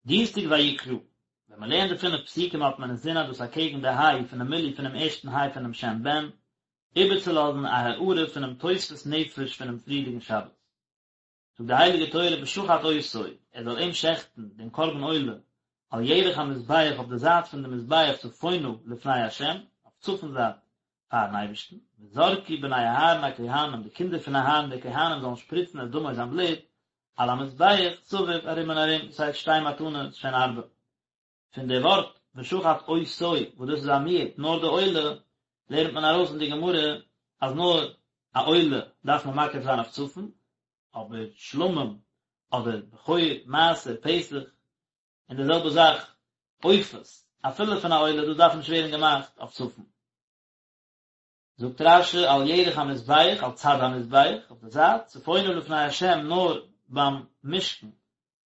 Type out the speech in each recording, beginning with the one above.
דינסטאג ויקרא, ווען מען לערנט די פינף פסוקים האט מען אינזין אז דאס אקעגן די היי פונעם מילוי פונעם ערשטן היי פונעם שם בן, איבערצולאזן א הארה פונעם תוספות נפש פונעם פריערדיגן שבת. זאגט די הייליגע תורה ושחט אותו, ער זאל אים שעכטן, דעם קרבן עולה, על ירך המזבח אויף די זייט פון די מזבח צפונה לפני ה', אויף צפון זייט פארן אייבערשטן, וזרקו בני אהרן הכהנים, די קינדער פון אהרן די כהנים זאלן שפריצן את דמו זיין בלוט, על המזבח סביב ארום און ארום, דאס הייסט שתי מתנות שהן ארבע. פון די ווארט ושחט אותו וואס דאס איז א מיעוט נאר די עולה, לערנט מען ארויס אין די גמרא אז נאר א עולה דארף מען מקריב זיין אויף צפון, אבער שלמים אדער בכור, מעשר, פסח, און די זעלבע זאך עופות, אפילו פון א עולה, דאס דארף נישט ווערן געמאכט אויף צפון. זאגט רש"י על ירך המזבח, על צד המזבח, אויף די זייט, צפונה לפני השם נאר ביים משכן,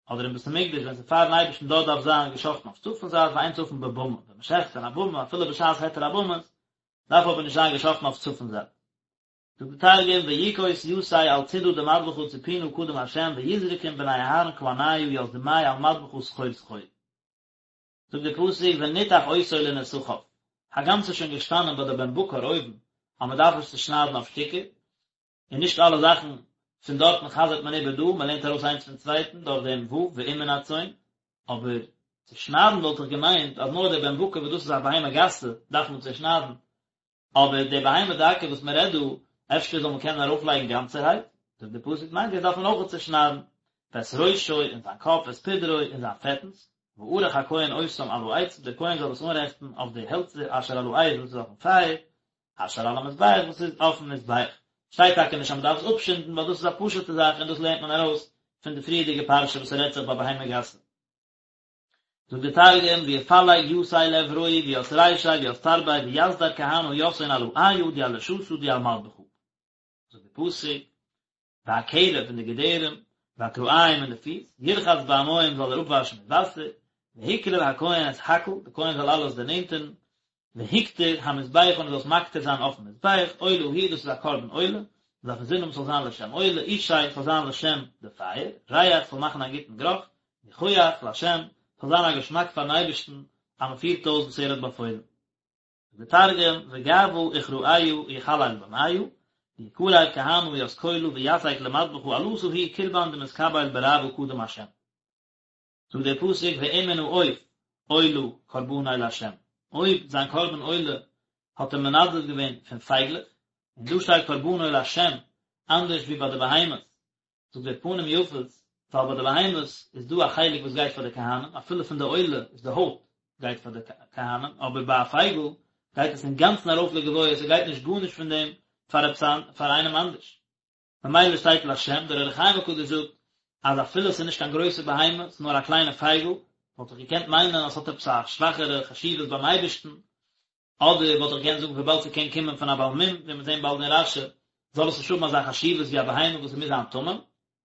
אדער אין בית המקדש ווען ס'איז פארן אייבערשטן דארט דארף זיין געשאכטן אויף צפון זייט ואין צפון בבמה, ווען מ'שעכט אין א במה אפילו בשעת היתר הבמות, דארף אבער נישט זיין געשאכטן אויף צפון זייט. זאגט די תרגום ויכוס יתיה על צידא דמדבחא צפונא קדם ה' ויזרקון בני אהרן כהניא ית דמיה על מדבחא סחור סחור. זאגט דער פסוק ונתח אותו לנתחיו, הגם ס'איז שוין געשטאנען ביי די בן בקר אויבן אז מען דארף עס צושניידן אויף שטיקער, און נישט אלע זאכן פון דארטן חזר'ט מען איבער דא, מען לערנט ארויס איינס פון צווייטן דורך דעם ו' ואם מן הצאן, אבער צושניידן וואלט איך געמיינט אז נאר דער בן בקר וואס דאס איז א בהמה גסה דארף מען צושניידן, אבער די בהמה דקה וואס מען רעדט דא, אפשר זאל מען קענען ארויפלייגן גאנצערהייט? זאגט דער פסוק ניין דאס דארף מען אויך צושניידן, ואת ראשו און זיין קאפ ואת פדרו און זיין פעטנס, וערך הכהן אותם על העצים, דער כהן זאל עס אנרעכטן אויף די העלצער אשר על האש וואס איז אויפן פייער, אשר על המזבח וואס איז אויפן מזבח. שטייט טאקע נישט אז מען דארף עס אפשינדן ווייל דאס איז א פשוטע זאך און דאס לערנט מען ארויס פון די פריערדיגע פרשה וואס ס'רעדט זיך ביי בהמה גסה. זאגט די תרגום, ויפלג יתיה לאברוהי וית רישיה וית תרביה ויסדר כהנא יתהון על העיא די על לשתא די על מדבחא. זאגט די פסוק, והקרב און די געדערים, והכרעים און די פיס, ירחץ במים זאל ער אפוואשן מיט וואסער, והקריב הכהן את הכל, די כהן זאל אלעס דערנענטערן, והקטיר המזבחה און ער זאל עס מקטיר זיין אויפן מזבח, עולה היא דאס איז א קרבן עולה, מען דארף אינזין האבן ס'זאל זיין לשם עולה, אשי ס'זאל זיין לשם די פייער, ריח ס'זאל מאכן א גוטן גערוך, ניחוח להשם, ס'זאל זיין א געשמאק פארן אייבערשטן אז מען פירט אויס וואס ער האט באפוילן. זאגט דער תרגום, וגעבא וכרעיא יכליל במיא, ויקריב כהנא ית כולא ויתיק למדבחא עלתא היא קרבן דמתקבל ברעוא קדם השם. זאגט דער פסוק ואם מן העוף עולה קרבנו לה', אויב זיין קרבן עולה האט ער מנדב געווען פון פייגלעך, און דא שטייט קרבנו לה' אנדערש ווי ביי די בהמות, זאגט דער פנים יפות, ווייל ביי די בהמות איז דא א חלק וואס גייט פאר די כהנים, אפילו פון די עולה איז די הויט גייט פאר די כהנים, אבער ביי א פייגל גייט עס אינגאנצן ארויף לגבוה, ס'גייט נישט גארנישט פון דעם פאר עפעס פאר איינעם אנדערש. ממילא שטייט להשם, דער אור החיים הקדוש זאגט אז אפילו עס איז נישט קיין גרויסע בהמה, עס איז נאר א קליינע פייגל, וואלט איך געקענט מיינען אז עס האט עפעס א שוואכערע חשיבות ביים אייבערשטן, אדער וואלט איך געקענט זאגן וויבאלד ס'קען קומען פון א בעל מום, ווי מיר זעהן באלד אין רש"י, זאל עס נישט האבן אזא חשיבות ווי א בהמה וואס עס מוז זיין תמים.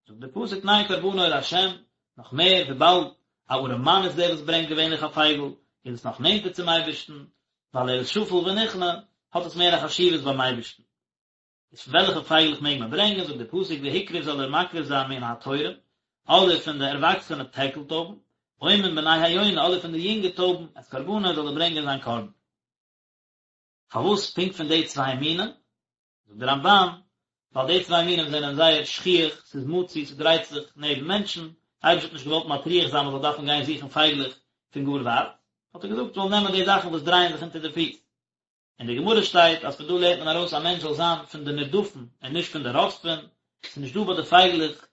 זאגט דער פסוק ניין קרבנו להשם, נאך מער וויבאלד א ארעמאן איז דער וואס ברענגט געווענליך א פייגל, איז עס נאך נענטער צום אייבערשטן, ווייל ער איז שפל ונכנע, האט עס מער א חשיבות ביים אייבערשטן. איז פון וועלכע פייגלעך מעג מען ברענגען, זאגט דער פסוק והקריב זאל ער מקריב זיין מן התורים, אדער פון די ערוואקסענע טערקל טויבן, או מן בני היונה, אדער פון די יונגע טויבן, את קרבנו זאל ער ברענגען זיין קרבן. פארוואס פונקט פון די צוויי מינים? זאגט דער רמב"ן, ווייל די צוויי מינים זענען זייער שכיח, ס'איז מצוי, ס'דרייט זיך נעבן מענטשן, דער אייבערשטער האט נישט געוואלט מטריח זיין מ'זאל דארפן גיין זוכן פייגלעך פון גאר ווייט, האט ער געזאגט מ'זאל נעמען די זאכן וואס דרייען זיך אונטער די פיס. אין די גמרא שטייט אז פון דא לערנט מען ארויס א מענטש זאל זיין פון די נרדפים און נישט פון די רודפים, ס'איז נישט דא ביי די פייגלעך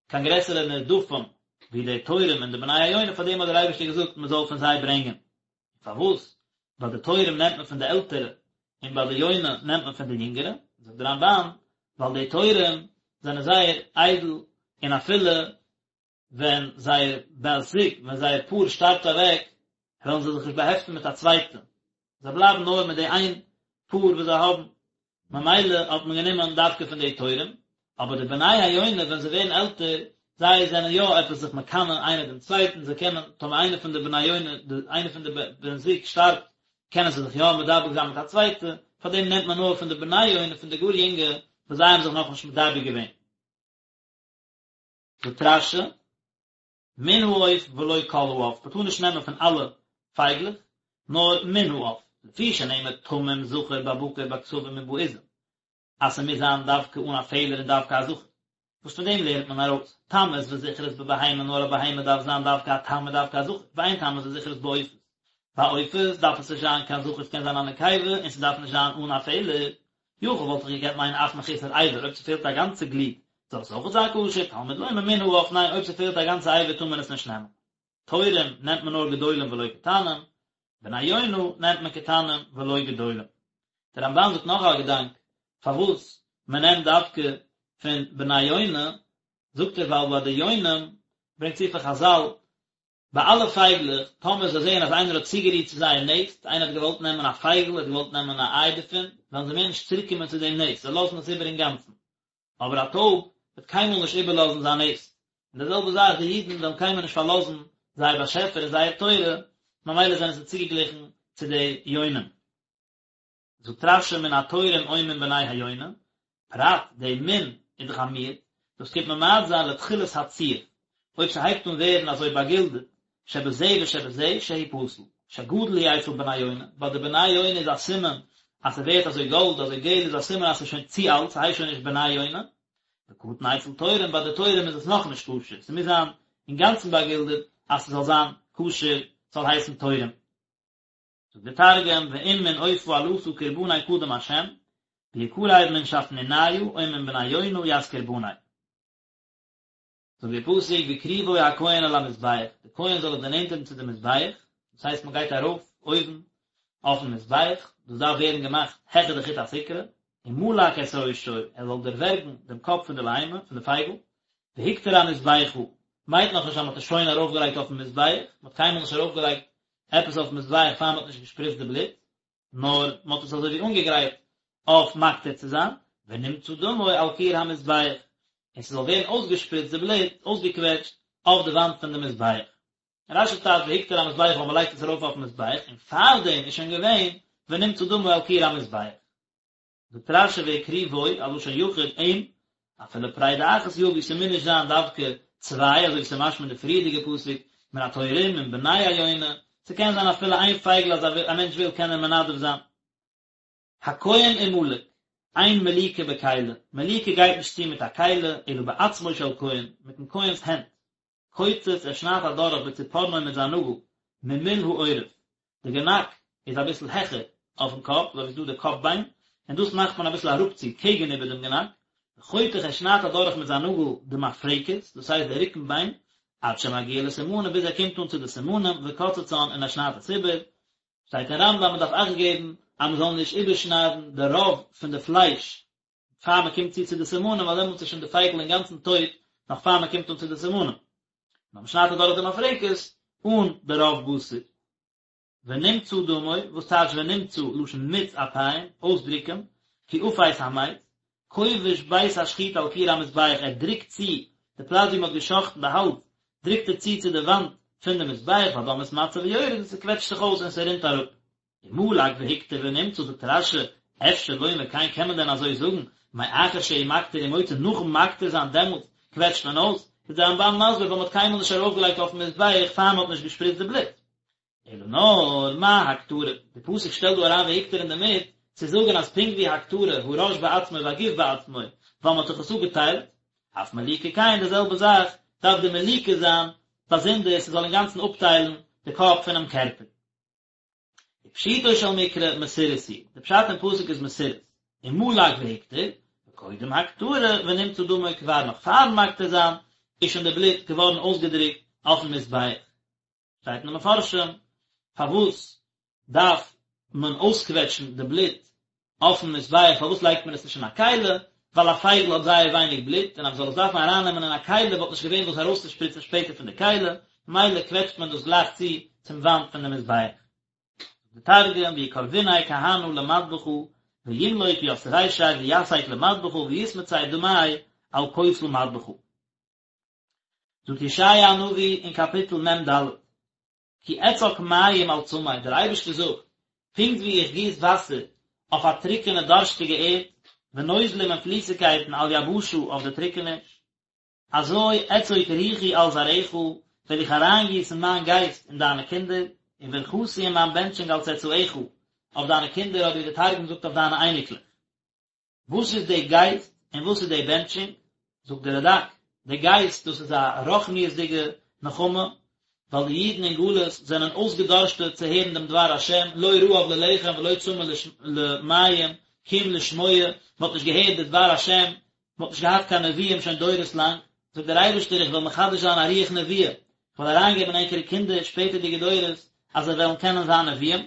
קיין גרעסערע נרדפים ווי די תורים און די בני היונה, פאר דעם האט דער אייבערשטער געזאגט מען זאל פון זיי ברענגען. פארוואס ביי די תורים נעמט מען פון די עלטערע און ביי די יונה נעמט מען פון די יונגערע? זאגט דער רמב"ן, ווייל די תורים זענען זייער איידל און אפילו ווען זייער בת זוג, ווען זייער פאר שטארבט אוועק, וועלן זיי זיך נישט באהעפטן מיט א צווייטע, זיי בלייבן נאר מיט די איין פאר וואס זיי האבן, ממילא האט מען גענומען דווקא פון די תורים, אבער די בני היונה ווען זיי ווערן עלטער, זיי זענען יא עפעס זיך מקנא איינער דעם צווייטן, זיי קענען, טאמער איינער פון די בני היונה, איינער פון די בן זוג שטארבט, קענען זיי זיך יא מדבק זיין מיט א צווייטע, פארדעם נעמט מען נאר פון די בני היונה, פון די גאר יונגע, וואס זיי האבן זיך נאכנישט מדבק געווען. זאגט רש"י. מן העוף ולא כל העוף, מ'טאר נישט נעמען פון אלע פייגלעך, נאר מן העוף, לפי שנאמר תמים זכר בבקר בכשבים ובעזים, אז ס'מוז זיין דווקא אן א פעלער און דווקא א זכר. וואס פון דעם לערנט מען ארויס, תמות וזכרות בבהמה נאר א בהמה דארף זיין דווקא א תם און דווקא א זכר, ואין תמות וזכרות בעופות. ביי עופות דארף עס נישט זיין קיין זכר ס'קען זיין א נקבה און ס'דארף נישט זיין אן א פעלער. יכול וואלט איך געקענט מיינען אף מחוסר אבר אויב ס'פעלט א גאנצע גליד זאל עס אויכעט זיין כשר, תלמוד לומר מן העוף ניין אויב ס'פעלט א גאנצע אבר טאר מען עס נישט נעמען. תורים נעמט מען נאר גדולים ולא קטנים, בני יונה נעמט מען קטנים ולא גדולים. דער רמב"ן זאגט נאך א געדאנק פארוואס מען נעמט דווקא פון בני יונה, זאגט ער ווייל ביי די יונים ברענגט צו פון חז"ל ביי אלע פייגלעך טאמער זיי זעען אז איינער האט צוגערירט צו זייער נעסט, איינער האט געוואלט נעמען א פייגל, האט געוואלט נעמען א איי דערפון, וועלן זיי מער נישט צוריקקומען צו דעם נעסט, זיי לאזן עס איבער אינגאנצן. אבער א טויב וועט קיינמאל נישט איבערלאזן זיין נעסט, און די זעלבע זאך די אידן וועלן קיינמאל נישט פארלאזן זייער באשעפער און זייער תורה, ממילא זענען זיי צוגעגליכן צו די יונים. זאגט רש"י מן התורים או מן בני היונה, פרט די מן איז דאך א מיעוט, דאס קומט ממעט זיין לתחילת הציוף, אויב ס'הייבט אן ווערן אזוי באגילדעט, שבזה ושבזה שהוא פסול, שגדול הוא אצל בני יונה, ביי די בני יונה איז א סימן אז ס'ווערט אזוי גאלד אזוי געל איז א סימן אז ס'איז שוין צו אלט ס'הייסט שוין נישט בני יונה, וקטן אצל תורים ביי די תורים איז עס נאכנישט כשר, ס'מוז זיין אינגאנצן באגילדעט אז ס'זאל זיין כשר ס'זאל הייסן תורים. זאגט די תרגום ואם מן עופא עלתא קרבני קדם השם, ויקרב מן שפניניא או מן בני יונה ית קרבני. זאגט דער פסוק והקריבו הכהן אל המזבח, דער כהן זאל עס דערנענטערן צו דעם מזבח, דאס הייסט מען גייט ארויף אויבן אויפן מזבח, דאס דארף ווערן געמאכט העכער די חוט הסיקרא, ומלק את ראשו, ער זאל דערווערגן דעם קאפ פון די בהמה, פון די פייגל, והקטיר המזבחה, מיינט נאכנישט אז מען האט עס שוין ארויפגעלייגט אויפן מזבח, מען האט קיינמאל נישט ארויפגעלייגט עפעס אויפן מזבח פאר מען האט נישט געשפריצט די בלוט, נאר מען האט עס אזוי ווי אנגעגרייט אויף מקטיר צו זיין, ונמצה דמו על קיר המזבח, און ס'זאל ווערן אויסגעשפריצט די בלוט, אויסגעקוועטשט, אויף די וואנט פון די מזבח. רש"י טייטשט והקטיר המזבחה ווייל מען לייגט עס ארויף אויפן מזבח, און פארדעם איז שוין געווען ונמצה דמו על קיר המזבח. זאגט רש"י והקריבו, א לשון יחיד, אים, אפילו פרידה אחת יביא, ס'מוז נישט זיין דווקא צוויי, אזוי ווי ס'איז משמע אין די פריערדיגע פסוק, מן התורים מן בני היונה, ס'קען זיין אפילו איין פייגל אז א מענטש וויל קען ער מנדב זיין. הכהן ומלק, אין מליקה בכלי, מליקה גייט נישט צו מיט א כלי, אלא בעצמו של כהן, מיטן כהן'ס הענט. קוצץ, ער שניידט אדורך בציפורנו מיט זיין נאגל, ממול העורף, די גענאק איז אביסל העכער אויפן קאפ, אזוי ווי ס'איז דא די קאפ ביין, און דאס מאכט מען אביסל אראפצו קעגן איבער דעם גענאק, וחותך ער שניידט אדורך מיט זיין נאגל די מפרקת, דאס הייסט די רוקן ביין, עד שמגיע לסימנים ביז ער קומט אן צו די סימנים, וקוצצן און ער שניידט עס איבער, שטייט אין רמב"ם מען דארף אכט געבן אז מען זאל נישט איבערשניידן די רוב פון די פלייש פאר מען קומט צו צו די סימנים ווייל דעמאלטס איז שוין די פייגל אינגאנצן טויט נאך פאר מען קומט אן צו די סימנים. נאר מען שניידט אדורך די מפרקת אן די רוב בשר. ונמצה דמו, וואס טייטש ונמצה, לשון מיץ אפיים, אויסדרוקען, כי אפס המץ, כובש בית השחיטה על קיר המזבח, ער דרוקט צו די פלאץ ווי מען האט געשחט'ן די האלז, דרוקט ער צו צו די וואנט פון די מזבח, והדם מתמצה ויורד און ס'קוועטשט זיך אויס און ס'רינט אראפ. ומלק והקטיר ונמצה זאגט רש"י, אפשר לומר כן קען מען דען אזוי זאגן, מאחר שהוא מקטיר ומוציא נאכן מקטיר זיין דעמאלטס קוועטשט מען אויס, איז דער רמב"ן מסביר ווייל מען האט קיינמאל נישט ארויפגעלייגט אויפן מזבח פאר מען האט נישט געשפריצט די בלוט. אלא נאר מה הקטרה, די פסוק שטעלט דא אריין והקטיר אינדערמיט צו זאגן אז פונקט ווי הקטרה הראש בעצמו והגוף בעצמו ווייל מען האט דאך עס אפגעטיילט, אף מליקה כן די זעלבע זאך דארף די מליקה זיין באזונדער ס'זאל אינגאנצן אפטיילן די קאפ פונעם קערפער. ופשוטו של מקרא מסורס הוא, די פשט אין פסוק איז מסורס, ומלק והקטיר, וקודם הקטרה ונמצה דמו כבר נאך פארן מקטיר זיין איז שוין די בלוט געווארן אויסגעדרוקט אויפן מזבח. שטייט אין די מפרשים פארוואס דארף מען אויסקוועטשן די בלוט אויפן מזבח פארוואס לייגט מען עס נישט אין א כלי, ווייל א פייגל האט זייער ווייניג בלוט און אז מ'זאל עס דארפן ארייננעמען אין א כלי וואלט נישט געווען וואס ארויסצושפריצן שפעטער פון די כלי, ממילא קוועטשט מען דאס גלייך צו צום וואנט פון די מזבח. די תרגום, ויקרביניה כהנא למדבחא וימלוק ית רישיה ויתיק למדבחא ויתמצי דמיה על כותל מדבחא. זאגט ישעיה הנביא אין קאפיטל מ"ד, כי אצק מים על צמא, דער אייבערשטער זאגט, פונקט ווי איך גיס וואסער אויף א טרוקענע דארשטיגע ערד, ונוזלים און פליסיגקייטן על יבשה אויף די טרוקעניש, אזוי אצוק רוחי על זרעך, וועל איך אריינגיסן מיין גייסט אין דיינע קינדער, וברכתי און מיין בענטשונג על צאצאיך, אויף דיינע קינדער, אדער ווי דער תרגום זאגט אויף דיינע אייניקלעך. וואס איז די גייסט און וואס איז די בענטשונג? זאגט דער רד"ק, די גייסט דאס איז א רוחניות'דיגע נחמה, ווייל די אידן אין גלות זענען אויסגעדארשטעט צו הערן דעם דבר השם, לא רעב ללחם ולא צמא למים, כי אם לשמוע, מען האט נישט געהערט די דבר השם, מען האט נישט געהאט קיין נביאים שוין דורות לאנג, זאגט דער אייבערשטער איך וועל מחדש זיין א רוח נבואה, איך וועל אריינגעבן אין ענקערע קינדער שפעטערדיגע דורות אז זיי וועלן קענען זיין נביאים.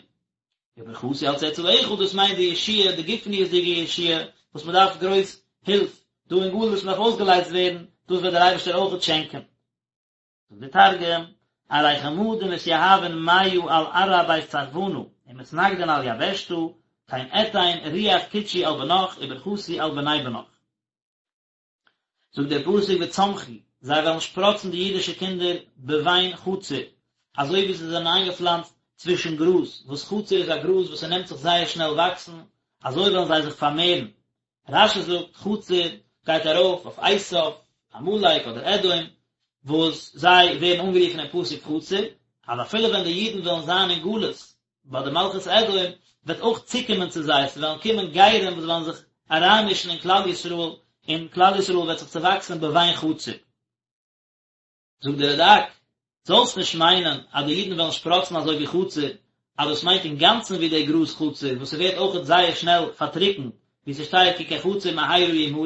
וברכתי על צאצאיך דאס מיינט די ישועה, די גופניות'דיגע ישועה, וואס מען דארף גרויס הילף דא אין גלות, מען דארף אויסגעלייזט ווערן, דאס וועט דער אייבערשטער אויכעט שענקען. זאגט דער תרגום, ארי כמה דמתיהבין מיא על ארעא בית צרחונא, ומתנגדין על יבשתא, כן אתין רוח קודשי על בנך וברכתי על בני בנך. זאגט דער פסוק וצמחו, זיי וועלן שפראצן די אידישע קינדער בבין חציר, אזוי ווי זיי זענען איינגעפלאנצט צווישן גראז, וואס חציר איז א גראז וואס ס'נעמט זיך זייער שנעל וואקסן, אזוי וועלן זיי זיך פארמערן. רש"י זאגט חציר גייט ארויף אויף עשיו, עמלק אדער אדום, וואס זיי ווערן אנגערופן אין פסוק חציר, אז אפילו ווען די אידן וועלן זיין אין גלות ביי די מלכות אדום, וועט אויך צוקומען צו זיי, ס'וועלן קומען גרים וואס וועלן זיך אריינמישן אין כלל ישראל, און כלל ישראל וועט זיך צעוואקסן בבין חציר. זאגט דער רד"ק, זאלסט נישט מיינען אז די אידן וועלן שפראצן אזוי ווי חציר, אז דאס מיינט אינגאנצן ווי דער גראז חציר וואס ס'ווערט אויכעט זייער שנעל פארטריקנט, ווי ס'שטייט כי כחציר מהרה ימלו,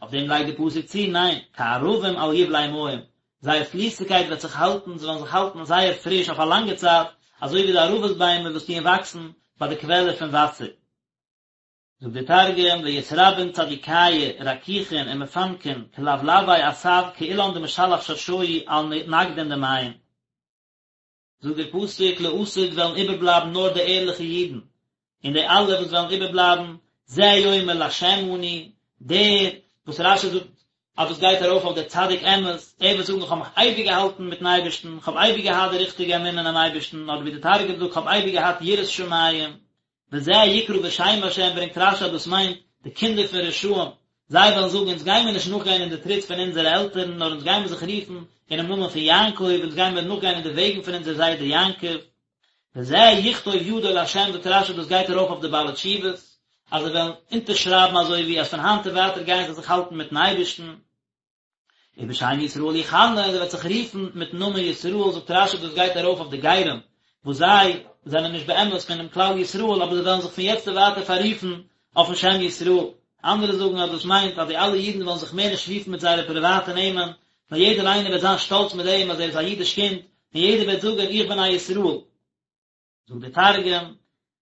אויף דעם לייגט די פסוק צו, ניין, כערבים על יבלי מים, זייער פליסיגקייט וועט זיך האלטן, זיי וועלן זיך האלטן זייער פריש אויף א לאנגע צייט, אזוי ווי די ערבות ביימער וואס טוען וואקסן ביי די קוועלער פון וואסער. זאגט דער תרגום, ויתרבין צדיקיא רקיחין ומפנקין כלבלבי עשב כאילן דמשלח שרשוהי על נגדין דמיא. זאגט דער פסוק, לעתיד וועלן איבערבלייבן נאר די ערליכע אידן, און די אלע וואס וועלן איבערבלייבן, זה יאמר לה' אני, דער וואס רש"י זאגט אז דאס גייט ארויף אויף דער צדיק אמת, ער וועט זאגן איך האב מיך אייביג געהאלטן מיטן אייבערשטן, איך האב אייביג געהאט די ריכטיגע אמונה אינעם אייבערשטן, אדער ווי דער תרגום זאגט, איך האב אייביג געהאט יראת שמים, וזה יקרא בשם השם ברענגט רש"י אז דאס מיינט די קינדער פון רשעים, זיי וועלן זאגן אונז גיימיר נישט נאכגיין אין די טריט פון אונזערע עלטערן נאר אונז גיימיר זיך רופן אינעם נאמען פון יעקב, אונז גיימיר נאכגיין אין די וועגן פון אונזער זיידע יעקב. וזה יכתוב ידו לה' זאגט רש"י דאס גייט ארויף אויף די בעלי תשובות אז זיי וועלן אונטערשרייבן אזוי ווי אז פון היינט און ווייטער גייען זיי זיך האלטן מיטן אייבערשטן. ובשם ישראל יכנה, און ער וועט זיך רופן מיטן נאמען ישראל, זאגט רש"י דאס גייט ארויף אויף די גרים, וואס זיי זענען נישט באמת פונעם כלל ישראל, אבער זיי וועלן זיך פון יעצט און ווייטער פאררופן אויפן שם ישראל. אנדערע זאגן אז דאס מיינט אז די אלע אידן וועלן זיך מער נישט רופן מיט זייערע פריוואטע נעמען, נאר יעדער איינער וועט זיין שטאלץ מיט דעם אז ער איז א אידיש קינד, און יעדער וועט זאגן איך בין א ישראל. זאגט דער תרגום,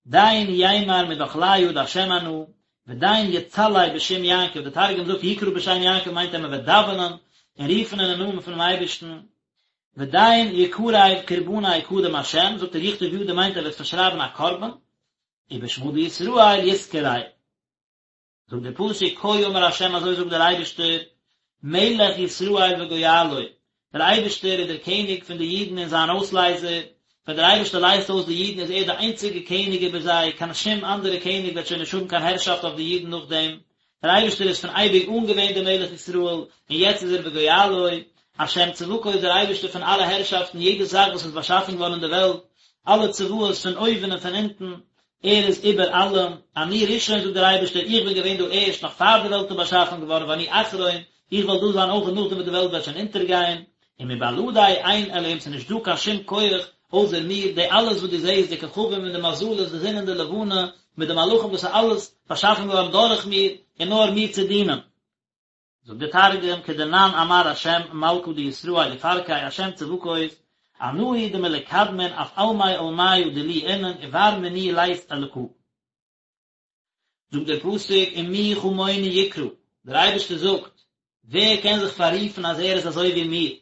דין יימר מדחליא דהשם אנא, ודין יצלי בשם יעקב, דער תרגום זאגט יקרא בשם יעקב מיינט אז מען וועט דאווענען און רופן אינעם נאמען פונעם אייבערשטן, ודין יקריב קרבניה קדם השם, זאגט ער יכתוב ידו מיינט ער וועט פארשרייבן א קרבן, ובשמא דישראל יתקרי. זאגט דער פסוק כה אמר ה' אזוי זאגט דער אייבערשטער, מלך ישראל וגואלו, דער אייבערשטער איז דער קעניג פון די אידן און זיין אויסלייזער, ווען דער אייבערשטער לייזט אויס די אידן איז ער דער איינציגער קעניג איבער זיי, קיין שום אנדערע קעניג וועט שוין נישט האבן קיין הערשאפט אויף די אידן נאכדעם, דער אייבערשטער איז פון אייביג אן געווען דער מלך ישראל, און יעצט איז ער וגואלו, השם צבקות דער אייבערשטער פון אלע הערשאפטן, יעדע זאך וואס איז באשאפן געווארן אין דער וועלט, אלע צבאות פון אויבן און פון אונטן, ער איז איבער אלעם, אני ראשון זאגט דער אייבערשטער, איך בין געווען דא ערשט נאך פאר די וועלט איז באשאפן געווארן, ואני אחרון, איך וועל דא זיין אויך נאכדעם וואס די וועלט וועט שוין אונטערגיין, ומבלעדי אין אלהים ס'איז נישט דא קיין שום כח אויסער מיר, די אלעס וואס דו זעסט, די כוכבים און די מזלות, די זון און די לבנה, מיט די מלאכים דאס איז אלעס באשאפן געווארן דורך מיר, און נאר מיר צו דינען. זאגט דער תרגום, כדנן אמר השם מלכא דישראל ופרקיה השם צבקות, אנא הוא דמלקדמין אף עלמי עלמיא דילי אינון ובר מינאי לית אלקא. זאגט דער פסוק ומי כמוני יקרא, דער אייבערשטער זאגט, ווער קען זיך פאררופן אז ער איז אזוי ווי מיר?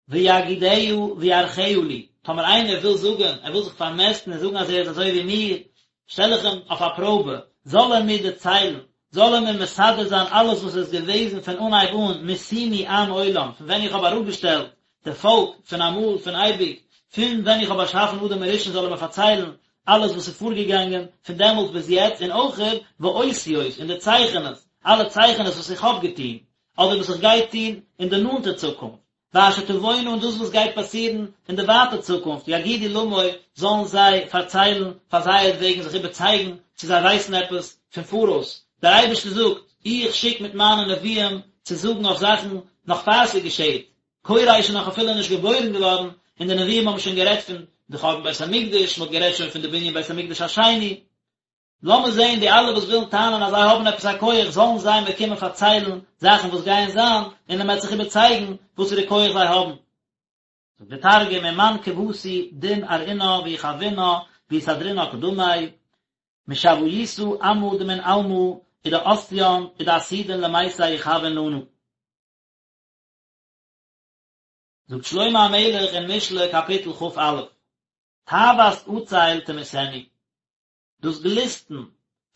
ויגידה ויערכה לי, טאמער איינער וויל זאגן, ער וויל זיך פארמעסטן און זאגן אז ער איז אזוי ווי מיר, שטעל איך אים אויף א פראבע, זאל ער מיר דערציילן, זאל ער מיר מסדר זיין אלעס וואס איז געוועזן פון אנהייב אן, משימי עם עולם, פון ווען איך האב אראפגעשטעלט די פאלק, פון אמאל, פון אייביג, פון ווען איך האב באשאפן אדם הראשון זאל ער מיר פארציילן אלעס וואס איז פארגעגאנגען פון דעמאלטס ביז יעצט, און אויכעט ואותיות, און די צייכענעס, אלע צייכענעס וואס איך האב געטון, אדער וואס איך גיי טון אין די נאנטע צוקונפט. ואשר תבואנה און דאס וואס גייט פאסירן אין די ווייטע צוקונפט, יגידו למו, זאלן זיי פארציילן פאר זייערט וועגן זיך איבערצייגן צו זיי ווייסן עפעס פון פאראויס. דער אייבערשטער זאגט, איך שיק מיט מיינע נביאים צו זאגן אויף זאכן נאך פאר ס'געשעט, כורש איז נאך אפילו נישט געבוירן געווארן און די נביאים האבן שוין גערעדט פון די חורבן בית המקדש, מ'האט גערעדט שוין פון די בנין בית המקדש השני. לאמיר זען די אלע וואס ווילן טענה'ן אז זיי האבן עפעס א כח, זאלן זיי מיר קומען פארציילן זאכן וואס גייען זיין, און מען וועט זיך איבערצייגן וואסערע כח זיי האבן. זאגט דער תרגום, ומאן כותי דין ארעינא ויחוינא ויסדרינא קדמי, משויתא עמא דמן עלמא ודאתיין ודעתידין למיתי יחוון לנא. זאגט שלמה המלך אין משלי קאפיטל כ"א, תאוות עצל תמיתנו, דאס גליסטן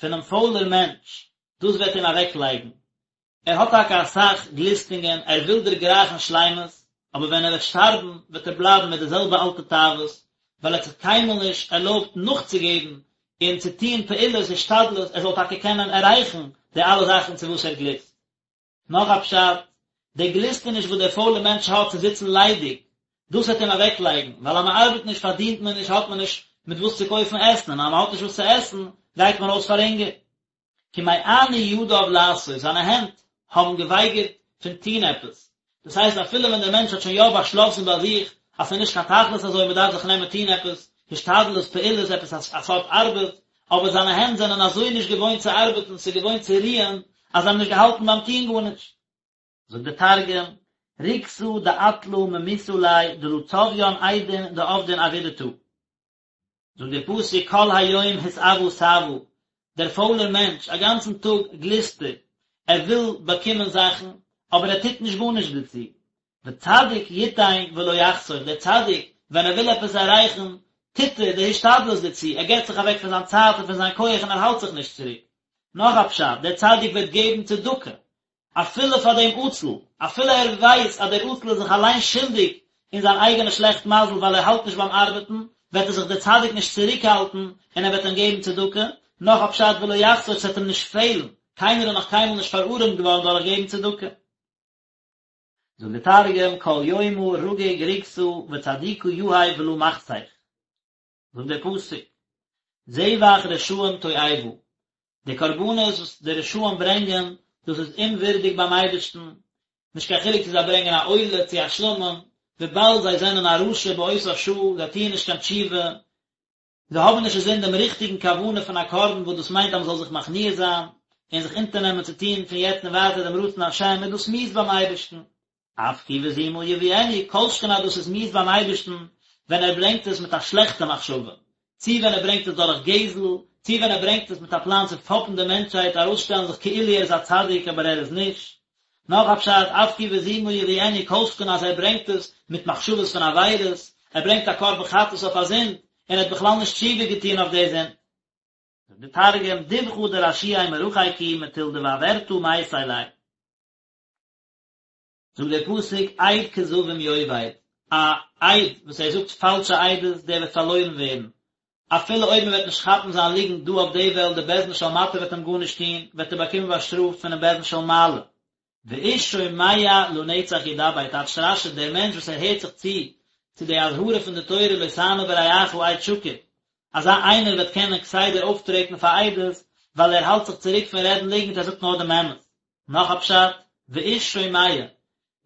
פונעם פוילער מענטש, דאס וועט אים אוועקלייגן. ער האט טאקע אסאך גליסטונגען, ער וויל דערגרייכן שלימות, אבער ווען ער וועט שטארבן וועט ער בלייבן מיט די זעלבע אלטע תאוות, ווייל ער האט זיך קיינמאל נישט ערלויבט נאכצוגעבן און צו טון פעולות השתדלות ער זאל טאקע קענען עררייכן די אלע זאכן צו וואס ער גליסט. נאך א פשט, די גליסטעניש וואס דער פוילער מענטש האט צו זיצן ליידיג, דאס וועט אים אוועקלייגן, ווייל אז מען ארבעט נישט פארדינט מען נישט האט מען נישט מיט וואס צו קויפן עסן, און אז מען האט נישט וואס צו עסן גייט מען אויס פאר הונגער. כי מאנו ידיו לעשות, זיינע הענט האבן געווייגערט פון טון עפעס, דאס הייסט אפילו ווען דער מענטש האט שוין יא באשלאסן ביי זיך אז ס'איז נישט קיין תכלית אזוי מען דארף זיך נעמען טון עפעס, השתדלות, פעולות, עפעס א סארט ארבעט, אבער זיינע הענט זענען אזוי נישט געוואוינט צו ארבעטן, ס'איז געוואוינט צו רוען, אז זיי האבן נישט געהאלטן ביים טון גארנישט. זאגט דער תרגום, רוגתא דעטלא ממיתא ליה דלא צביין אידין דעבדין עבידתא. זאגט דער פסוק כל היום התאוה תאוה, דער פוילער מענטש, א גאנצן טאג גליסט ער, ער וויל באקומען זאכן, אבער ער טוט נישט גארנישט דערצו. וצדיק יתן ולא יחסוך, דער צדיק, ווען ער וויל עפעס עררייכן, טוט ער די השתדלות דערצו, ער געבט זיך אוועק פון זיין צייט און פון זיין כח און ער האלט זיך נישט צוריק. נאך א פשט, דער צדיק וועט געבן צדקה, אפילו פאר דעם עצל, אפילו ער ווייסט אז דער עצל איז זיך אליין שולדיג אין זיין אייגענע שלעכט מזל ווייל ער האלט נישט ביים ארבעטן, וועט ער זיך דער צדיק נישט צוריקהאלטן און ער וועט אים געבן צדקה, נאך א פשט ולא יחסוך ס'וועט אים נישט פעלן, קיינער איז נאך קיינמאל נישט פארארעמט געווארן דורך געבן צדקה. זאגט דער תרגום, כל יומא רגיג רוגתא וצדיקא יהיב ולא מחסך. זאגט דער פסוק, זבח רשעים תועבה, די קרבנות וואס די רשעים ברענגען, דאס איז אומווירדיג ביים אייבערשטן, נישט קיין חילוק צו זיי ברענגען א עולה צו א שלמים, וויבאלד זיי זענען א רשע באותה שעה, זיי טוען נישט קיין תשובה, זיי האבן נישט אינזין דעם ריכטיגן כוונה פון א קרבן וואס דאס מיינט אז מען זאל זיך מכניע זיין און זיך אונטערנעמען צו טון פון יעצט און ווייטער דעם רצון השם, איז דאס מיאוס ביים אייבערשטן. אף כי בזימה יביאנו, כל שכן אז דאס איז מיאוס ביים אייבערשטן ווען ער ברענגט עס מיט א שלעכטע מחשבה, צי ווען ער ברענגט עס דורך גזל, צי ווען ער ברענגט עס מיט א פלאן צו פאפן די מענטשהייט, ארויסשטעלן זיך כאילו ער איז א צדיק אבער ער איז נישט. נאך א פשט, אף כי בזימה יביאנו, כל שכן אז ער ברענגט עס מיט מחשבות פון עבירות, ער ברענגט א קרבן חטאת אויף א זינד, און ער האט בכלל נישט תשובה געטון אויף די זינד. זאגט דער תרגום, דבחא דרשיעי מרחק הוא מטול דבעברתא מייתי ליה. זאגט דער פסוק עד כזבים יאבד, א עד וואס ער זאגט פאלשע עדות דער וועט פארלוירן ווערן, אפילו אויב מען וועט נישט כאפן זיין ליגנט דא אויף די וועלט, די בית דין של מטה וועט אים גארנישט טון, וועט ער באקומען באשטראפט פונעם בית דין של מעלה. ואיש שומע לנצח ידבר, טייטשט רש"י, דער מענטש וואס ער הערט זיך צו צו די אזהרה פון די תורה לא תענה ברעך עד שקר, אזא איינער וועט קענען כסדר אויפטרעטן פאר עדות, ווייל ער האלט זיך צוריק פון רעדן ליגנט, ער זאגט נאר דעם אמת. נאך א פשט, ואיש שומע,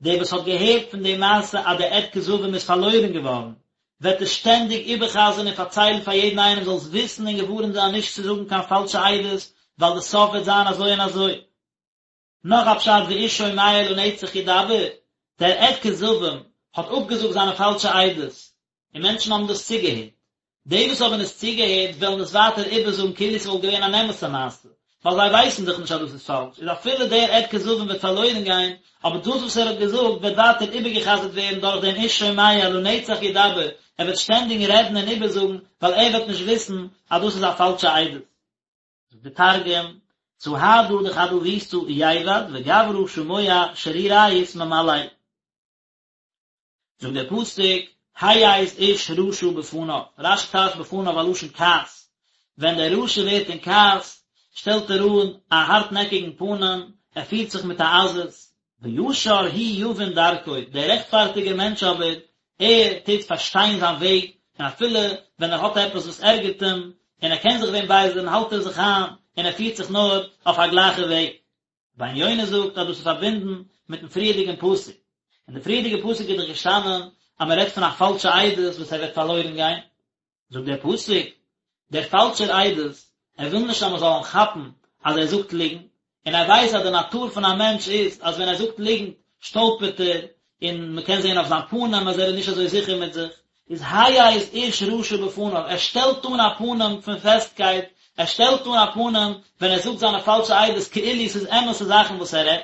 דער וואס האט געהערט פון די מעשה אז דער עד כזבים איז פארלוירן געווארן, וועט עס שטענדיג איבער'חזר'ן און פארציילן פאר יעדן איינעם זאלסט וויסן און געווארנט זיין נישט צו זאגן קיין פאלשע עדות, ווייל די סוף וועט זיין אזוי און אזוי. נאך א פשט ואיש שומע לנצח ידבר, דער עד כזבים האט אפגעזאגט זיינע פאלשע עדות, און מענטשן האבן דאס צוגעהערט. די וואס האבן עס צוגעהערט וועלן עס ווייטער איבערזאגן כאילו ס'וואלט געווען אן אמת'ע מעשה, ווייל זיי ווייסן דאך נישט אז דאס איז פאלש, איז אפילו דער עד כזבים וועט פארלוירן גיין, אבער דאס וואס ער האט געזאגט וועט ווייטער איבערגע'חזר'ט ווערן דורך דעם איש שומע לנצח ידבר, ער וועט שטענדיג רעדן און איבערזאגן, ווייל ער וועט נישט וויסן אז דאס איז א פאלשע עדות. זאגט דער תרגום, סהדא דחדוותא ייבד וגברא שמוע שרירית ממלל. זאגט דער פסוק, העז איש רשע בפניו, רש"י טייטשט בפניו א לשון כעס, ווען דער רשע ווערט אין כעס, שטעלט ער אן א הארטנעקיגן פנים, ער פירט זיך מיט א עזות. וישר הוא יבין דרכו, דער רעכטפארטיגער מענטש אבער, ער טוט פארשטיין זיין וועג, און אפילו ווען ער האט עפעס וואס ערגערט אים, און ער קען זיך ווען בייזערן, האלט ער זיך איין, און ער פירט זיך נאר אויף א גלייכע וועג. רבינו יונה זאגט אז דאס איז פארבינדן מיטן פריערדיגן פסוק. אין די פריערדיגע פסוק איז דאך געשטאנען אז מען רעדט פון א פאלשע עדות וואס ער וועט פארלוירן גיין. זאגט דער פסוק, דער פאלשער עדות, ער וויל נישט אז מען זאל אים כאפן אז ער זאגט ליגנט, און ער ווייסט אז די נאטור פון א מענטש איז אז ווען ער זאגט ליגנט שטאלפערט ער, און מען קען זען אויף זיין פנים אז ער איז נישט אזוי זיכער מיט זיך, איז העז איש רשע בפניו, ער שטעלט אן א פנים פון פעסטקייט, ער שטעלט אן א פנים ווען ער זאגט זיינע פאלשע עדות כאילו ס'איז אמת'ע זאכן וואס ער רעדט.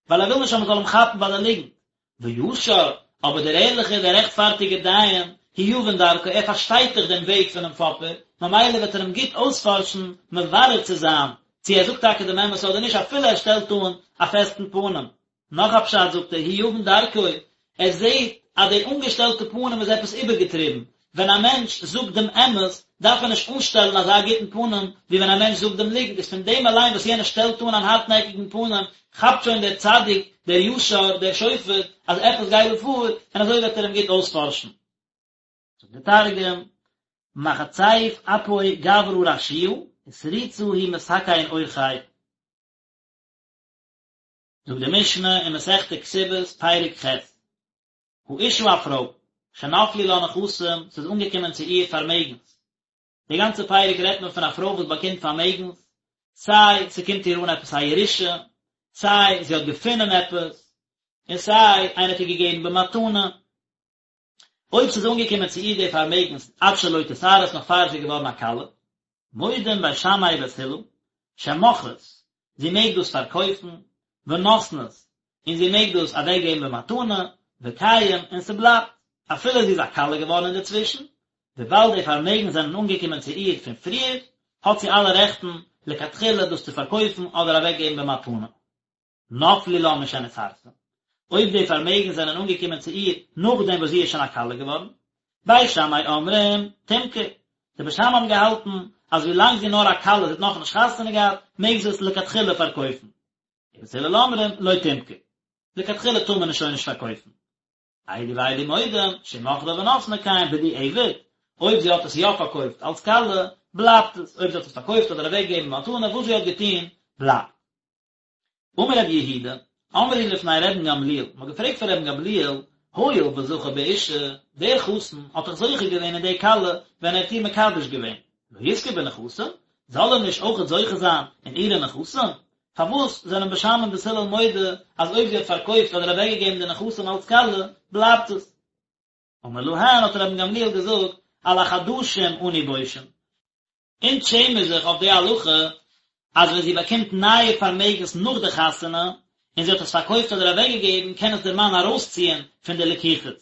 ווייל ער וויל נישט אז מען זאל אים כאפן ביי די ליגנט. וישר, אבער דער ערליכער, דער רעכטפארטיגער דיין, הוא יבין דרכו, ער פארשטייט דאך דעם וועג פונעם פאפער, ממילא וועט ער אים גוט אויספארשן, מברר צו זיין, צו ער זאגט טאקע דעם אמת אדער נישט, אפילו ער שטעלט אן א פעסטן פנים. נאך א פשט זאגט ער, הוא יבין דרכו, ער זעט אז די אנגעשטעלטע פנים איז עפעס איבערגעטריבן, ווען א מענטש זאגט דעם אמת דארף ער נישט אנשטעלן אזא גוטן פנים ווי ווען א מענטש זאגט דעם ליגנט, איז פון דעם אליין וואס יענער שטעלט אן אן הארטנעקיגן פנים כאפט שוין דער צדיק, דער ישר, דער שופט, אז עפעס גייט דא פאר, און אזוי וועט ער אים גוט אויספארשן. זאגט דער תרגום, מחציף אפוי גברא רשיעא, ותריצא הוא מתקן אורחיה. זאגט די משנה אין מסכת כתובות פרק ח', האשה א פרוי, שנפלו לה נכסים, ס'איז אנגעקומען צו איר פארמעגנס. די גאנצע פרק רעדט מען פון א פרוי וואס באקומט פארמעגנס, סיי ס'קומט איר אן עפעס א ירושה, סיי זי האט געפונען עפעס, און סיי איינער האט איר געגעבן במתנה. אויב ס'איז אנגעקומען צו איר די פארמעגנס עד שלא תתארס נאך פאר זי איז געווארן א כלה, מודים בית שמאי ובית הלל, שמוכרות, זי מעג דאס פארקויפן, ונותנות, און זי מעג דאס אוועקגעבן במתנה, וקיים, און ס'בלייבט, אפילו זי איז א כלה געווארן אינדערצווישן, וויבאלד די פארמעגנס זענען אנגעקומען צו איר פון פריער, האט זי אלע רעכטן לכתחילה דאס צו פארקויפן אדער אוועקגעבן במתנה. נפלו לה משנתארסה, אויב די פארמעגנס זענען אנגעקומען צו איר נאכדעם וואס זי איז שוין א כלה געווארן, בית שמאי אומרים, תמכור, די בית שמאי האבן געהאלטן אז ווילאנג זי איז נאר א כלה, זי האט נאכנישט חתונה געהאט, מעג זי עס לכתחילה פארקויפן. ובית הלל אומרים, לא תמכור, לכתחילה טאר מען עס שוין נישט פארקויפן. אלו ואלו מודים, שאם מכרה ונתנה קיים בדיעבד, אויב זי האט עס יא פארקויפט אלס כלה, בלייבט עס, אויב זי האט עס פארקויפט אדער אוועקגעגעבן במתנה, וואס זי האט געטון, בלייבט. אמר רבי יהודה, אמרו לפני רבן גמליאל, מען האט געפרעגט פאר רבן גמליאל, הואיל וזכה באשה, דער חתן האט דאך זוכה געווען אין די כלה ווען ער האט איר מקדש געווען, לא יזכה בנכסים, זאל ער נישט אויכעט זוכה זיין אין אירע נכסים? פארוואס זענען בית שמאי און בית הלל מודה אז אויב זי האט פארקויפט אדער אוועקגעגעבן די נכסים אלס כלה, בלייבט עס? אמר להן האט רבן גמליאל געזאגט, על החדשים אנו בושין, אונז שעמען זיך אויף די הלכה אז ווען זי באקומט נייע פארמעגנס נאך די חתונה און זי האט עס פארקויפט אדער אוועקגעגעבן קען עס דער מאן ארויסציען פון די לקוחות.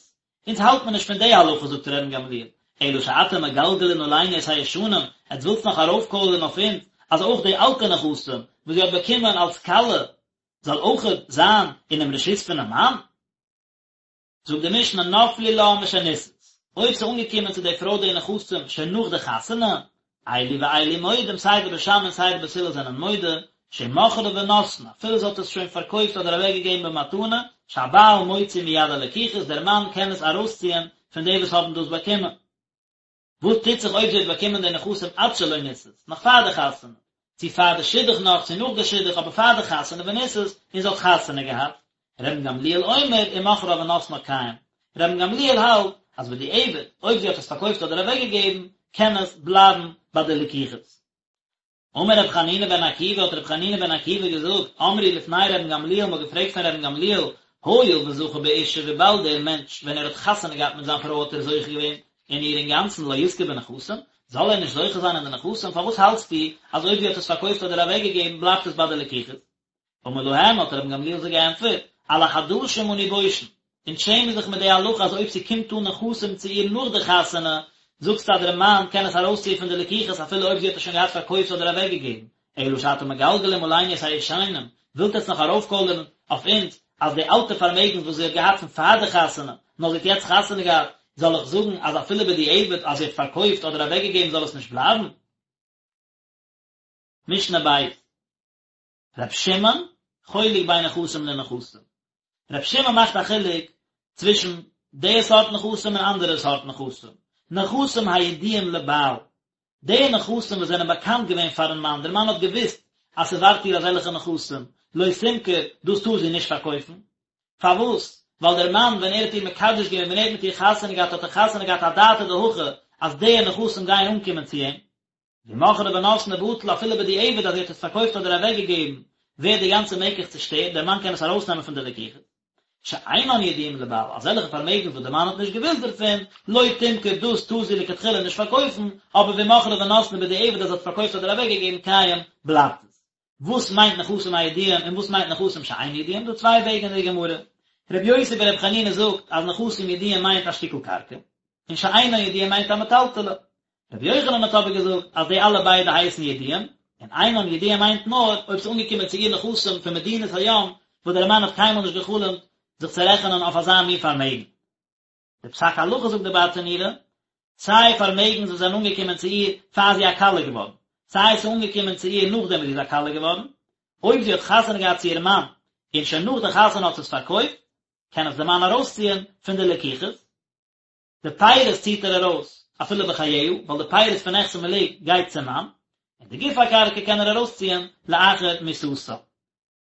אונז האלט מען נישט פון די הלכה זאגט רבן גמליאל, אלא שאתם מגלגלין עלינו את הישנים, עטס ווילטס נאך ארויפקוילערן אויף אונז אז אויך די אלטע נכסים וואס זי האט באקומען אלס כלה זאל אויכעט זיין אינעם רשות פונעם מאן? זאגט די משנה נפלו לה משנישאת, אויב ס'איז אנגעקומען צו די פרוי די נכסים שוין נאך די חתונה, אלו ואלו מודים סיי די בית שמאי און סיי די בית הלל זענען מודה, שאם מכרה ונתנה, אפילו זי האט עס שוין פארקויפט אדער אוועקגעגעבן במתנה, שהבעל מוציא מיד הלקוחות, דער מאן קען עס ארויסציען פון די וואס האבן דאס באקומען. וואס טוט זיך אויב זי האט באקומען די נכסים עד שלא נישאת, נאך פאר די חתונה, צו פאר די שידוך נאך, צו נאך די שידוך, אבער פאר די חתונה ונישאת, און זי האט חתונה געהאט? רבן גמליאל אומר, אם מכרה ונתנה קיים. רבן גמליאל האלט אז בדיעבד, אויב זי האט עס פארקויפט אדער אוועקגעגעבן, קען עס בלייבן ביי די לקוחות. אמר רבי חנינא בן עקיבא האט רבי חנינא בן עקיבא געזאגט, אמרו לפני רבן גמליאל מ'האט געפרעגט פון רבן גמליאל, הואיל וזכה באשה וויבאלד דער מענטש ווען ער האט חתונה געהאט מיט זיין פרוי האט ער זוכה געווען אין איר אינגאנצן לא יזכה בנכסים, זאל ער נישט זוכה זיין אין די נכסים, פארוואס האלטסטו אז אויב זי האט עס פארקויפט אדער אוועקגעגעבן בלייבט עס ביי די לקוחות? אמר להם האט רבן גמליאל זיי געענטפערט, על החדשים אנו בושין, אונז שעמען זיך מיט די הלכה אז אויב ס'קומט אן נכסים צו איר נאך די חתונה, זאגסטו אז דער מאן קען עס ארויסציען פון די לקוחות אפילו אויב זי האט עס שוין געהאט פארקויפט אדער אוועקגעגעבן, אלא שאתם מגלגלים עלינו את הישנים, ווילט עטס נאך ארויפקוילערן אויף אונז אז די אלטע פארמעגנס וואס זי האט געהאט פון פאר די חתונה, נאר זי האט יעצט חתונה געהאט, זאל איך זאגן אז אפילו בדיעבד אז זי האט פארקויפט אדער אוועקגעגעבן זאל עס נישט בלייבן? משנה בית. ר' שמעון. חולק בין נכסים לנכסים. ר' שמעון מאכט א חילוק צווישן די סארט נכסים און אנדערע סארט נכסים. נכסים הידועים לבעל, די נכסים וואס זענען באקאנט געווען פארן מאן, דער מאן האט געוואוסט אז ס'ווארט איר אזעלכע נכסים, לא תמכור, דאס טאר זי נישט פארקויפן. פארוואס? ווייל דער מאן ווען ער האט איר מקדש געווען, ווען ער האט מיט איר חתונה געהאט, האט ער חתונה געהאט אדעתא דהכי אז די נכסים גייען אנקומען צו אים. ואם מכרה ונתנה בטל אפילו בדיעבד אז זי האט עס פארקויפט אדער אוועקגעגעבן, ווערט די גאנצע מקח צושטערט, דער מאן קען עס ארויסנעמען פון די לקיחות. שאינן ידועים לבעל, אזעלכע פארמעגנס וואס דער מאן האט נישט געוואוסט דערפון, לא תמכור דאס טאר זי לכתחילה נישט פארקויפן, אבער ואם מכרה ונתנה בדיעבד אז זי האט פארקויפט אדער אוועקגעגעבן קיים, בלייבט עס. וואס מיינט נכסים הידועים און וואס מיינט נכסים שאינן ידועים? דא צוויי וועגן אין די גמרא. רבי יוסי ברבי חנינא זאגט אז נכסים ידועים מיינט א שטיקל קרקע, און שאינן ידועים מיינט א מטלטלי. רבי יוחנן האט אבער געזאגט אז די אלע ביידע הייסן ידועים, און אינן ידועים מיינט נאר אויב ס'איז אנגעקומען צו איר נכסים פון מדינת הים וואס דער מאן האט קיינמאל נישט גע'חלומ'ט זיך צו רעכענען אויף אזא מין פארמעגן. די פסק הלכה זאגט די ברטנורא, סיי פארמעגנס וואס זענען אנגעקומען צו איר פאר זי איז א כלה געווארן, סיי ס'איז אנגעקומען צו איר נאכדעם וואס זי איז א כלה געווארן, אויב זי האט חתונה געהאט צו איר מאן און שוין נאך די חתונה האט זי עס פארקויפט, קען עס די מאן ארויסציען פון די לקיחות. די פירות ציט ער ארויס אפילו בחייה, ווייל די פירות פון נכסי מלוג גייט צום מאן, און די גוף הקרקע קען ער ארויסציען לאחר מיתתה.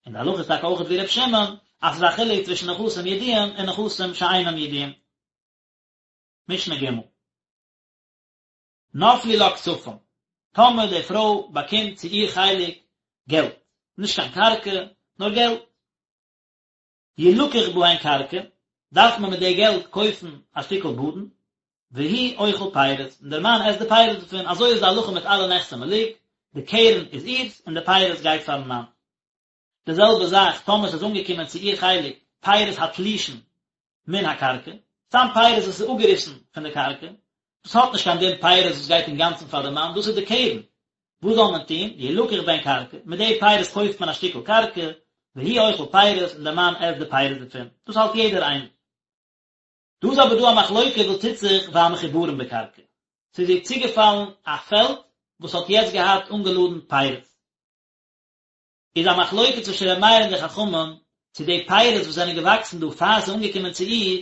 און די הלכה איז טאקע אויכעט ווי ר' שמעון, אז ס'איז א חילוק צווישן נכסים ידועים און נכסים שאינם ידועים. משנה ג'. נפלו לה כספים, טאמער די פרוי באקומט צו איר חלק געלט, נישט קיין קרקע, נאר געלט. ילקח בהן קרקע, דארף מען מיט די געלט קויפן א שטיקל באדן, והוא אוכל פירות, און דער מאן עסט די פירות דערפון, אזוי איז די הלכה מיט אלע נכסי מלוג, די קרן איז אירס און די פירות גייט פארן מאן. די זעלבע זאך טאמער ס'איז אנגעקומען צו איר חלק פירות התלושין מן הקרקע, סתם פירות וואס איז אפגעריסן פון די קרקע, דאס האט נישט קיין דין פירות וואס גייט אינגאנצן פאר די מאן, דאס איז די קרן, וואס זאל מען טון, ילקח בהן קרקע, מיט די פירות קויפט מען א שטיקל קרקע, והוא אוכל פירות, און דער מאן עסט די פירות דערפון, דאס האלט יעדער איינער. דא איז אבער דא א מחלוקה וואס טוט זיך והמחוברין בקרקע, ס'איז איר צוגעפאלן א פעלד וואס האט יעצט געהאט אנגעלאדן פירות, איז א מחלוקה צווישן ר' מאיר און די חכמים, צו די פירות וואס זענען געוואקסן דא פאר ס'איז אנגעקומען צו איר,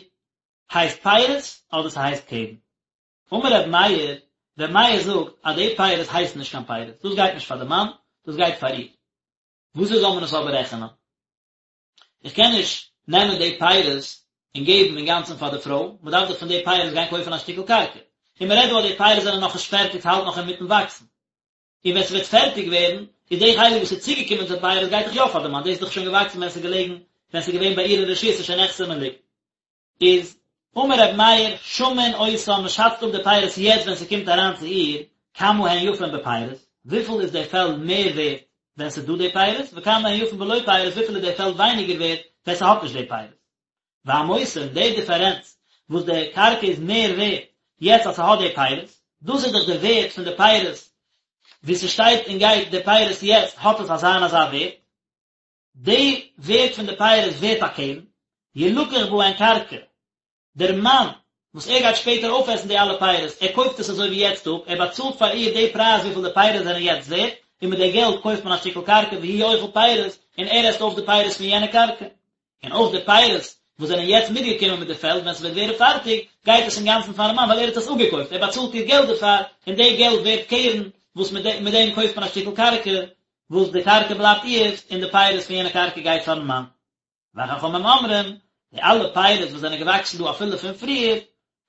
הייסט פירות אדער ס'הייסט קרן. אמר ר' מאיר, ר' מאיר זאגט אז די פירות הייסן נישט קיין פירות, דאס גייט נישט פאר די מאן, דאס גייט פאר איר. וואזוי זאל מען עס אבער רעכענען? איך קען נישט נעמען די פירות און געבן אינגאנצן פאר די פרוי, מען דארף דאך פון די פירות גיין קויפן א שטיקל קרקע. און מען רעדט דא אז די פירות זענען נאכנישט פערטיג, ס'האלט נאך אינמיטן וואקסן. און ווען ס'וועט פערטיג ווערן, איז די חלק וואס איז צוגעקומען צו די פירות גייט דאך יא פאר די מאן, דאס איז דאך שוין געוואקסן ווען ס'איז געלעגן, ווען ס'איז געווען ביי איר אין רשות, ס'איז שוין נכסי מלוג. איז אמר ר' מאיר, שמין אותן, מען שאצט אפ די פירות יעצט ווען ס'קומט אריין צו איר, כמה הן יפין בפירות, וויפיל איז די פעלד מער ווערט ווען ס'איז דא די פירות, וכמה הן יפין בלא פירות, וויפיל איז די פעלד ווייניגער ווערט ווען ס'האט נישט די פירות. והמותר, די דיפערענץ וואס די קרקע איז מער ווערט יעצט אז ס'האט די פירות, דאס איז דאך די ווערט פון די פירות, ווי ס'שטייט און גייט די פירות יעצט האט עס אזא און אזא ווערט, די ווערט פון די פירות ווערט א קרן, ילקח בהן קרקע, דער מאן וואס ער גייט שפעטער אויפעסן די אלע פירות, ער קויפט עס אזוי ווי יעצט אפ, ער באצאלט פאר איר די פרייז וויפיל די פירות זענען יעצט ווערט, און מיט די געלט קויפט מען א שטיקל קרקע והוא אוכל פירות, און ער עסט אויף די פירות פון יענע קרקע. און אויך די פירות וואס זענען יעצט מיטגעקומען מיט די פעלד, ווען ס'וועט ווערן פארטיג, גייט עס אינגאנצן פארן מאן ווייל ער האט עס אפגעקויפט, ער באצאלט איר געלט דערפאר, און די געלט ווערט קרן וואס מיט דעם קויפט מען א שטיקל קרקע, וואס די קרקע בלייבט אירס און די פירות פון יענע קרקע גייט פארן מאן. וחכמים אומרים, די אלע פירות וואס זענען געוואקסן דא אפילו פון פריער,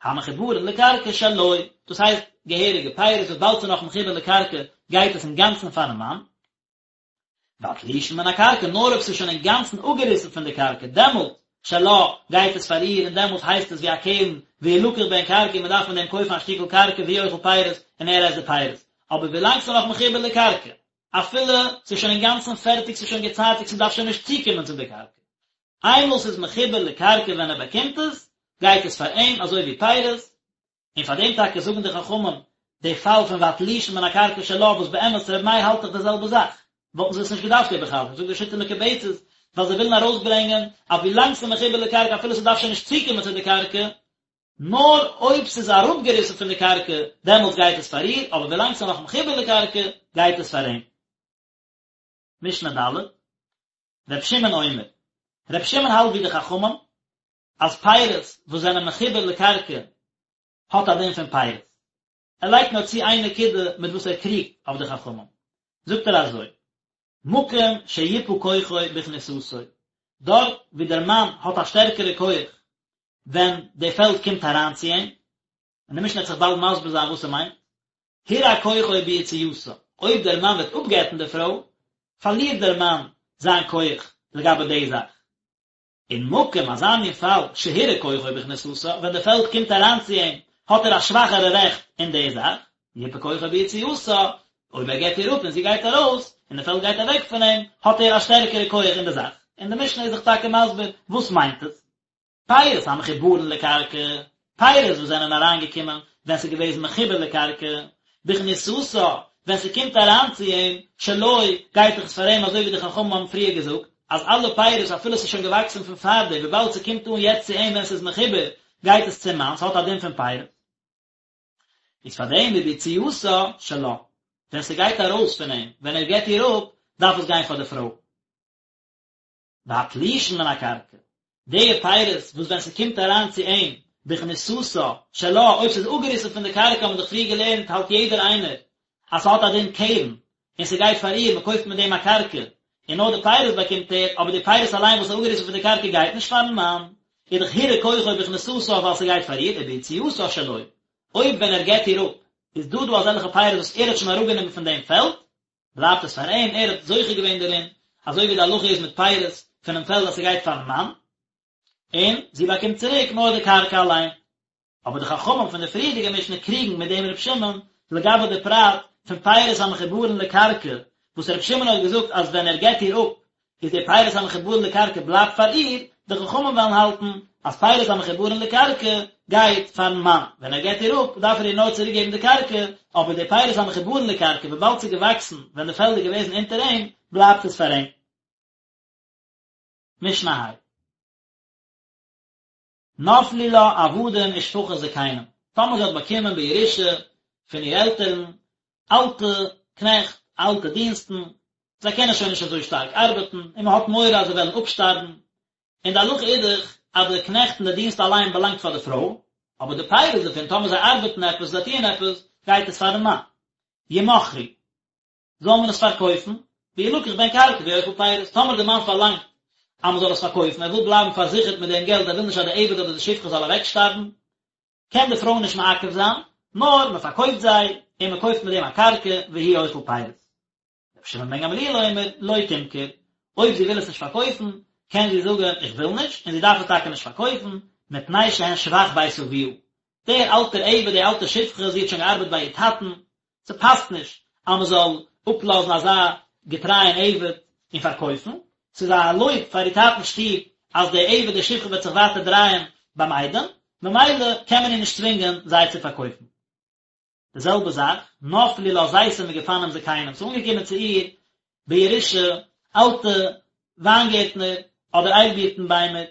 המחוברין לקרקע שלו, דאס הייסט געהעריגע פירות וואס באלד ס'איז נאך מחובר לקרקע גייט עס אינגאנצן פארן מאן, והתלושין מן הקרקע, נאר אויב ס'איז שוין אינגאנצן אפגעריסן פון די קרקע, דעמאלט, שלה, גייט עס פאר איר, און דעמאלט הייסט עס ווי א קרן, וילקח בהן קרקע, און מ'דארף מיט דעם קויפן א שטיקל קרקע והוא אוכל פירות, און ער עסט די פירות. אבער ווילאנג ס'איז נאך מחובר לקרקע, אפילו ס'איז שוין אינגאנצן פערטיג, ס'איז שוין געצייטיגט, ס'דארף שוין נישט צוקומען צו די קרקע. איינמאל ס'איז מחובר לקרקע ווען ער באקומט עס, גייט עס פאר אים אזוי ווי פירות, און פאר דעם טאקע זאגן די חכמים די פאל פון והתלושין מן הקרקע שלה וואס באמת ר' מאיר האלט דאך די זעלבע זאך, וואלטן זיי עס נישט געדארפט איבערחזר'ן, זאגט די שיטה מקובצת, ווייל זיי ווילן ארויסברענגען אז ווילאנג ס'איז מחובר לקרקע אפילו ס'דארף שוין נישט צוקומען צו די קרקע, נאר אויב ס'איז אראפגעריסן פון די קרקע דעמאלטס גייט עס פאר איר, אבער ווילאנג ס'איז נאך מחובר לקרקע גייט עס פאר אים. משנה ד'. ר' שמעון אומר, ר' שמעון האלט ווי די חכמים, אז פירות וואס זענען מחובר לקרקע האט א דין פון פירות. ער לייגט נאר צו איין נקודה מיט וואס ער קריגט אויף די חכמים. זאגט ער אזוי, מקום שיפה כוחו בכניסתו, דארט ווי דער מאן האט א שטערקערע כח ווען די פעלד קומט אריין צו אים, און די משנה וועט זיך באלד מסביר זיין וואס ס'מיינט, הורע כוחו ביציאתה, אויב דער מאן וועט אפגט'ן די פרוי, פארלירט דער מאן זיין כח לגבי די זאך. און מקום אזא מין פאל שהורע כוחו בכניסתה, ווען די פעלד קומט אריין צו אים, האט ער א שוואכערע רעכט אין די זאך, יפה כוחו ביציאתה, אויב ער גט איר אפ און זי גייט ארויס, און די פעלד גייט אוועק פון אים, האט ער א שטערקערע כח אין די זאך. און די משנה איז זיך טאקע מסביר וואס מיינט עס. פירות המחוברין לקרקע, פירות וואס זענען אריינגעקומען ווען ס'איז געוועזן מחובר לקרקע, בכניסתה, ווען ס'קומט אריין צו אים, שלו, גייט דאך עס פאר אים אזוי ווי די חכמים האבן פריער געזאגט, אז אלע פירות אפילו ס'איז שוין געוואקסן פון פארדעם וויבאלד ס'קומט אן יעצט צו אים ווען ס'איז מחובר, גייט עס צום מאן, ס'האט א דין פון פירות. איז פאר דעם וביציאתה שלה, ווען ס'גייט ארויס פון אים, ווען ער גט איר אפ, דארף עס גיין פאר די פרוי. והתלושין מן הקרקע, די פירות וואס ווען ס'קומט אריין צו אים בכניסתה שלה, אויב ס'איז אפגעריסן פון די קרקע האבן מיר דאך פריער געלערנט האלט יעדער איינער אז ס'האט א דין קרן און ס'גייט פאר איר, מ'קויפט מיט דעם א קרקע און נאר די פירות באקומט ער, אבער די פירות אליין וואס איז אפגעריסן פון די קרקע גייט נישט פארן מאן, איז דאך הורע כוחו בכניסתה ווייל ס'גייט פאר איר, וביציאתה שלו, אויב ווען ער גט איר אפ איז דא דא אזעלכע פירות וואס ער האט שוין אראפגענומען פון דעם פעלד, בלייבט עס פאר אים, ער האט זוכה געווען דערין, אזוי ווי די הלכה איז מיט פירות פונעם פעלד אז ס'גייט פארן מאן, און זי באקומט צוריק נאר די קרקע אליין. אבער די חכמים פון די פריערדיגע משנה קריגן מיט דעם ר' שמעון לגבי די פרט פון פירות המחוברין לקרקע, וואס ר' שמעון האט געזאגט אז ווען ער גט איר אפ איז די פירות המחוברין לקרקע בלייבט פאר איר, די חכמים וועלן האלטן אז פירות המחוברין לקרקע גייט פארן מאן, ווען ער גט איר אפ דארף ער איר נאר צוריק געבן די קרקע, אבער די פירות המחוברין לקרקע וויבאלד ס'איז געוואקסן ווען די פעלד איז געוועזן אונטער אים, בלייבט עס פאר אים. משנה ה'. נפלו לה עבדים ושפחות זקנים, טאמער זי האט באקומען בירושה פון איר עלטערן אלטע קנעכט, אלטע דינסטן, זיי קענען שוין נישט אזוי שטארק ארבעטן, און מען האט מורא אז זיי וועלן אפשטארבן, און די הלכה איז דאך אז די קנעכט און די דינסט אליין באלאנגט פאר די פרוי, אבער די פירות דערפון, טאמער זיי ארבעטן עפעס, זיי טוען עפעס, גייט עס פארן מאן. ימכרו. זאל מען עס פארקויפן, וילקח בהן קרקע והוא אוכל פירות, טאמער די מאן פארלאנגט אז מען זאל עס פארקויפן, ער וויל בלייבן פארזיכערט מיט דעם געלט, ער וויל נישט אז די עבד אדער די שפחה זאל אוועקשטארבן, קען די פרוי נישט מעכב זיין, נאר מען פארקויפט זיי, און מען קויפט מיט דעם א קרקע, והוא אוכל פירות. רבי שמעון בן גמליאל אומר, לא תמכור, אויב זי וויל עס נישט פארקויפן, קען זי זאגן איך וויל נישט, און זי דארף עס טאקע נישט פארקויפן, מפני שהן שבח בית אביה. דער אלטער עבד, די אלטע שפחה, זי האט שוין געארבעט ביי איר טאטן, ס'פאסט נישט אז מ'זאל אפלאזן אזא געטרייען עבד און פארקויפן, ס'איז א לויב פאר איר טאטנ'ס שטוב אז דער עבד די שפחה וועט זיך ווייטער דרייען ביים איידעם, ממילא קען מען איר נישט צווינגען זיי צו פארקויפן. די זעלבע זאך, נפלו לה זיתים וגפנים זקנים, ס'איז אנגעקומען צו איר בירושה אלטע וויינגערטנער אדער איילבירטן ביימער,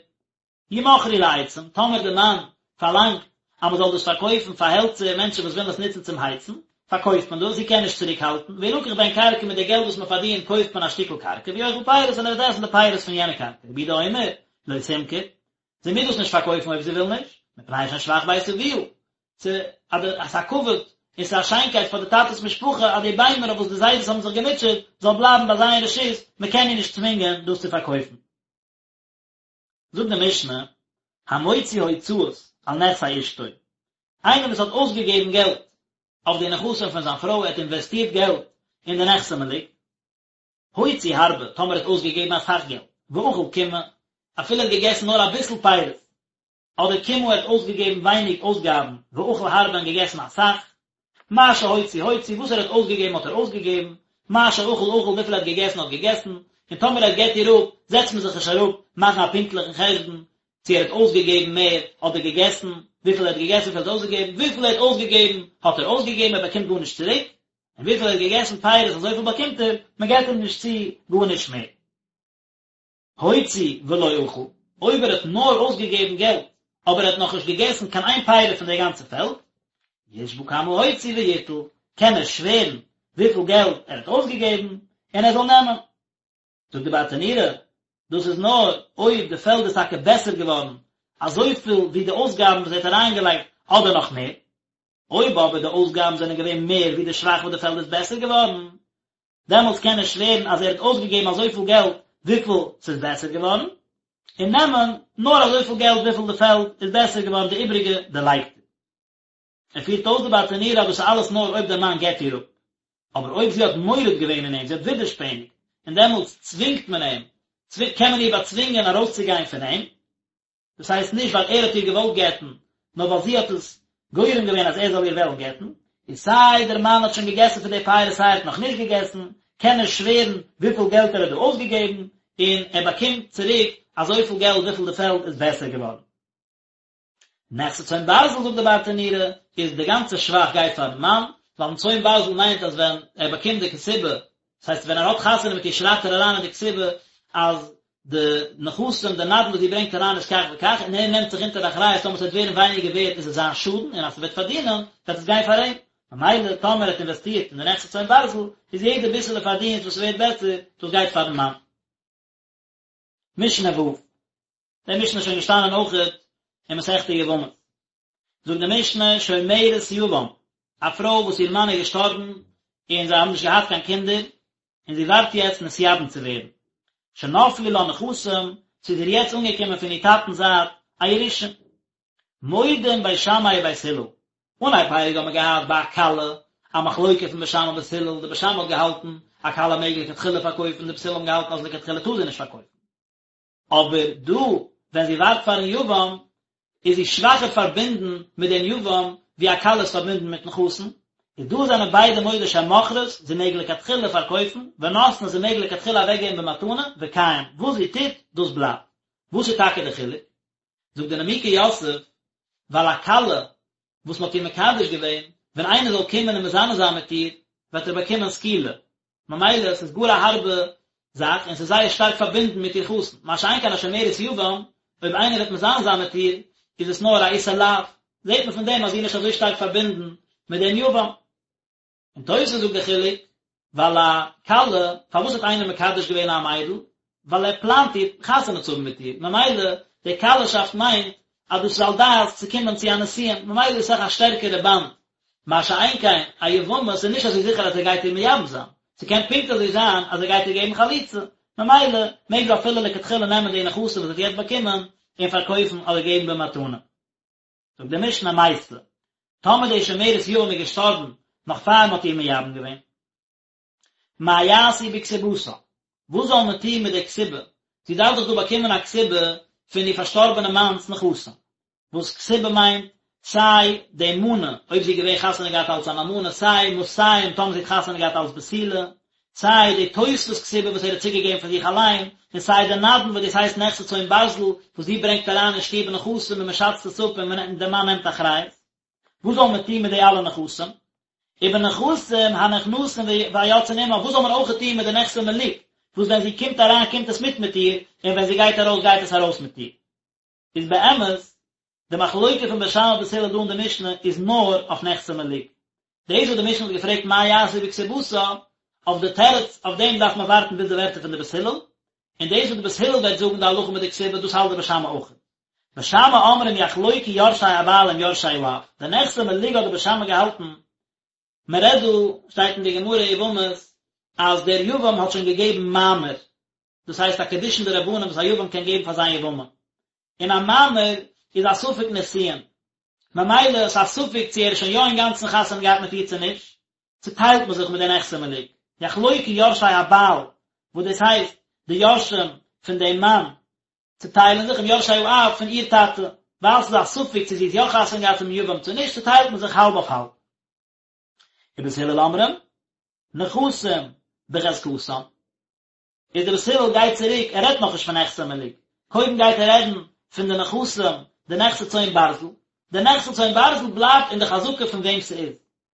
ימכרו לעצים, טאמער די מאן פארלאנגט אז מען זאל דאס פארקויפן פאר העלצער, מענטשן וואס ווילן עס נוצן צום הייצן, פארקויפט מען דאס, זי קען נישט צוריק האלטן, וילקח בהן קרקע מיט די געלט וואס מען פארדינט קויפט מען א שטיקל קרקע, והוא אוכל פירות און ער וועט עסן די פירות פון יענע קרקע, רבי יהודה אומר, לא תמכור, זי מוז דאס נישט פארקויפן אויב זי וויל נישט, מפני שהן שבח בית אביה, ס'איז א כבוד און ס'איז א שיינקייט פאר די טאטע'ס משפחה אז די ביימער אויף וואס די זיידעס האבן זיך געמוטשעט זאל בלייבן ביי זיי אין רשות, מען קען איר נישט צווינגען דאס צו פארקויפן. זאגט די משנה, המוציא הוצאות על נכסי אשתו, איינער וואס האט אויסגעגעבן געלט אויף די נכסים פון זיין פרוי, ער האט אינוועסטירט געלט אין די נכסי מלוג, הוציא הרבה, טאמער ער האט אויסגעגעבן אסאך געלט, ואכל קימעא, אפילו ער האט געגעסן נאר אביסל פירות, אדער קימעא ער האט אויסגעגעבן ווייניג אויסגאבן, ואכל הרבה און געגעסן אסאך, מה שהוציא הוציא, וואס ער האט אויסגעגעבן האט ער אויסגעגעבן, מה שאכל אכל, וויפיל ער האט געגעסן האט געגעסן, און טאמער ער גט איר אפ, זעצט מען זיך נישט אראפ מאכן א פונקטליכן חשבון, צו ער האט אויסגעגעבן מער אדער געגעסן, וויפיל ער האט געגעסן וויפיל ער האט אויסגעגעבן, וויפיל ער האט אויסגעגעבן האט ער אויסגעגעבן ער באקומט גארנישט צוריק, און וויפיל ער האט געגעסן פירות אזויפיל באקומט ער, מען געט אים נישט צו גארנישט מער. הוציא ולא אכל, אויב ער האט נאר אויסגעגעבן געלט, אבער ער האט נאכנישט געגעסן קיין איין פרי פון די גאנצע פעלד, ישבע כמה הוציא ויטול, קען ער שווערן וויפיל געלט ער האט אויסגעגעבן, און ער זאל נעמען. זאגט די ברטנורא. דאס איז נאר אויב די פעלד איז טאקע בעסער געווארן אזויפיל ווי די אויסגאבן וואס ער האט אריינגעלייגט אדער נאך מער. אויב אבער די אויסגאבן זענען געווען מער ווי די שבח וואס די פעלד איז בעסער געווארן, דעמאלטס קען ער שווערן אז ער האט אויסגעגעבן אזויפיל געלט וויפיל ס'איז בעסער געווארן, און נעמען נאר אזויפיל געלט וויפיל די פעלד איז בעסער געווארן, די איבריגע דערלייגט ער. ער פירט אויס די ברטנורא אז דאס איז אלעס נאר אויב דער מאן גט איר אפ, אבער אויב זי האט מורד געווען אין אים, זי האט ווידערשפעניגט, און דעמאלטס צווינגט מען אים, קען מען איר באצווינגען ארויסצוגיין פון אים, דאס הייסט נישט ווייל ער האט איר געוואלט גט'ן, נאר ווייל זי האט עס גורם געווען אז ער זאל איר וועלן גט'ן, איז סיי דער מאן האט שוין געגעסן פון די פירות סיי ער האט נאך נישט געגעסן, קען ער שווערן וויפיל געלט ער האט דא אויסגעגעבן, און ער באקומט צוריק אזויפיל געלט וויפיל די פעלד איז בעסער געווארן. נכסי צאן ברזל זאגט די ברטנורא, איז די גאנצע שבח גייט פארן מאן, ווייל צאן ברזל מיינט אז ווען ער באקומט די כתובה, דאס הייסט ווען ער האט חתונה מיט איר שרייבט ער אריין אין די כתובה אז די נכסים, די נדן וואס זי ברענגט אריין איז כך וכך, און ער נעמט זיך אונטער די אחריות טאמער ס'וועט ווערן ווייניגער ווערט איז עס זיין שאדן, און אז ס'וועט פארדינען וועט עס גיין פאר אים. ממילא טאמער ער האט אינוועסטירט אין די נכסי צאן ברזל, איז יעדע ביסעלע פארדינסט וואס ס'ווערט בעסער, דאס גייט פארן מאן. משנה ו'. די משנה איז שוין געשטאנען אויכעט אין מסכת יבמות. זאגט די משנה שומרת יבם, א פרוי וואס איר מאן איז געשטארבן און זיי האבן נישט געהאט קיין קינדער, און זי ווארט יעצט נתייבם צו ווערן. שנפלו לה נכסים, ס'איז איר יעצט אנגעקומען פון איר טאטנ'ס זייט א ירושה. מודים בית שמאי ובית הלל. אנהייב פרק האט מען געהאט ביי א כלה א מחלוקה פון בית שמאי ובית הלל, די בית שמאי האט געהאלטן א כלה מעג לכתחילה פארקויפן, די בית הלל האבן געהאלטן אז לכתחילה טאר זי נישט פארקויפן. אבער דא ווען זי ווארט פארן יבם איז זי שוואכער פארבינדן מיט דעם יבם ווי א כלה איז פארבינדן מיטן חתן, איז דא זענען ביידע מודה שמוכרת, זי מעג לכתחילה פארקויפן, ונותנת זי מעג לכתחילה אוועקגעבן במתנה, וקיים, וואס זי טוט, דאס בלייבט. וואס איז טאקע די חילוק? זאגט די נימוקי יוסף, ווייל א כלה וואס מען האט איר מקדש געווען, ווען איינער זאל קומען און מזנה זיין מיט איר, וועט ער באקומען סקילה, ממילא עס איז גאר א הארבע זאך און עס איז זייער שטארק פארבינדן מיט איר חתן, מה שאין כן א שומרת יבם, אויב איינער וועט מזנה זיין מיט איר, איז עס נאר א איסור לאו, זעט מען פון דעם אז זי איז נישט אזוי שטארק פארבינדן מיט דעם יבם. און תוס' זאגט די חילוק, ווייל א כלה, פארוואס האט איינער מקדש געווען א מיידל? ווייל ער פלאנט איר חתונה צו האבן מיט איר, ממילא די כלה'שאפט מיינט אז דאס איז על דעת צו קומען צו א נישואין, ממילא איז אסאך א שטערקערע באנד, מה שאין כן א יבמה, ס'איז נישט אזוי זיכער אז ער גייט איר מייבם זיין, ס'קען פונקט אזוי זיין אז ער גייט איר געבן חליצה, ממילא מעג זי אפילו לכתחילה נעמען די נכסים וואס זי האט יעצט באקומען און פארקויפן אדער געבן במתנה. זאגט די משנה מתה, טאמער די שומרת יבם איז געשטארבן נאך פאר מען האט איר מייבם געווען, מה יעשו בכתובתה, וואס זאל מען טון מיט די כתובה, זי דארף דאך דא באקומען א כתובה פון איר פארשטארבענע מאנ'ס נכסים, וואס כתובה מיינט סיי די מנה אויב זי איז געווען חתונה געהאט אלס אן אלמנה, סיי מאתים טאמער זי האט חתונה געהאט אלס בתולה, סיי די תוספות כתובה וואס ער האט צוגעגעבן פון זיך אליין, און סיי די נדן וואס דאס הייסט נכסי צאן ברזל וואס זי ברענגט אריין אין שטוב נכסים און מען שאצט עס אפ און דער מאן נעמט אחריות. וואס זאל מען טון מיט די אלע נכסים? ובנכסים הנכנסים והיוצאים עמה, וואס זאל מען אויך טון מיט די נכסי מלוג, וואס ווען זי קומט אריין קומט עס מיט מיט איר, און ווען זי גייט ארויס גייט עס ארויס מיט איר. איז באמת, די מחלוקה פון בית שמאי ובית הלל דא אין די משנה איז נאר אויף נכסי מלוג. דאס וואס די משנה האט געפרעגט מה יעשו בכתובתה, אויף די תירוץ אויף דעם דארף מען ווארטן ביז די ווערטער פון די בית הלל, און דאס וואס די בית הלל וועט זאגן די הלכה מיט די כתובה דאס האלט די בית שמאי אויך. בית שמאי אומרים יחלוקו יורשי הבעל עם יורשי האב, די נכסי מלוג האט די בית שמאי געהאלטן, מען רעדט דא, שטייט אין די גמרא יבמות, אז דער יבם האט שוין געגעבן מאמר, דאס הייסט א קידושין דרבנן וואס א יבם קען געבן פאר זיין יבמה, און א מאמר איז א ספק נישואין, ממילא איז א ספק צו ער איז שוין יא אינגאנצן חתונה געהאט מיט איר צו נישט, צוטיילט מען זיך מיט די נכסי מלוג, יחלוקו יורשי הבעל, וואס דאס הייסט די יורשים פון דעם מאן צוטיילן זיך עם יורשי האב פון איר טאטע, ווייל ס'איז א ספק צו זי האט יא חתונה געהאט צום יבם צו נישט, צוטיילט מען זיך האלב אויף האלב. ובית הלל אומרים, נכסים בחזקתם. איז דער בית הלל גייט צוריק, ער רעדט נאכנישט פון נכסי מלוג, קודם גייט ער רעדן פון די נכסים, די נכסי צאן ברזל, די נכסי צאן ברזל בלייבט אין די חזקה פון וועם ס'איז,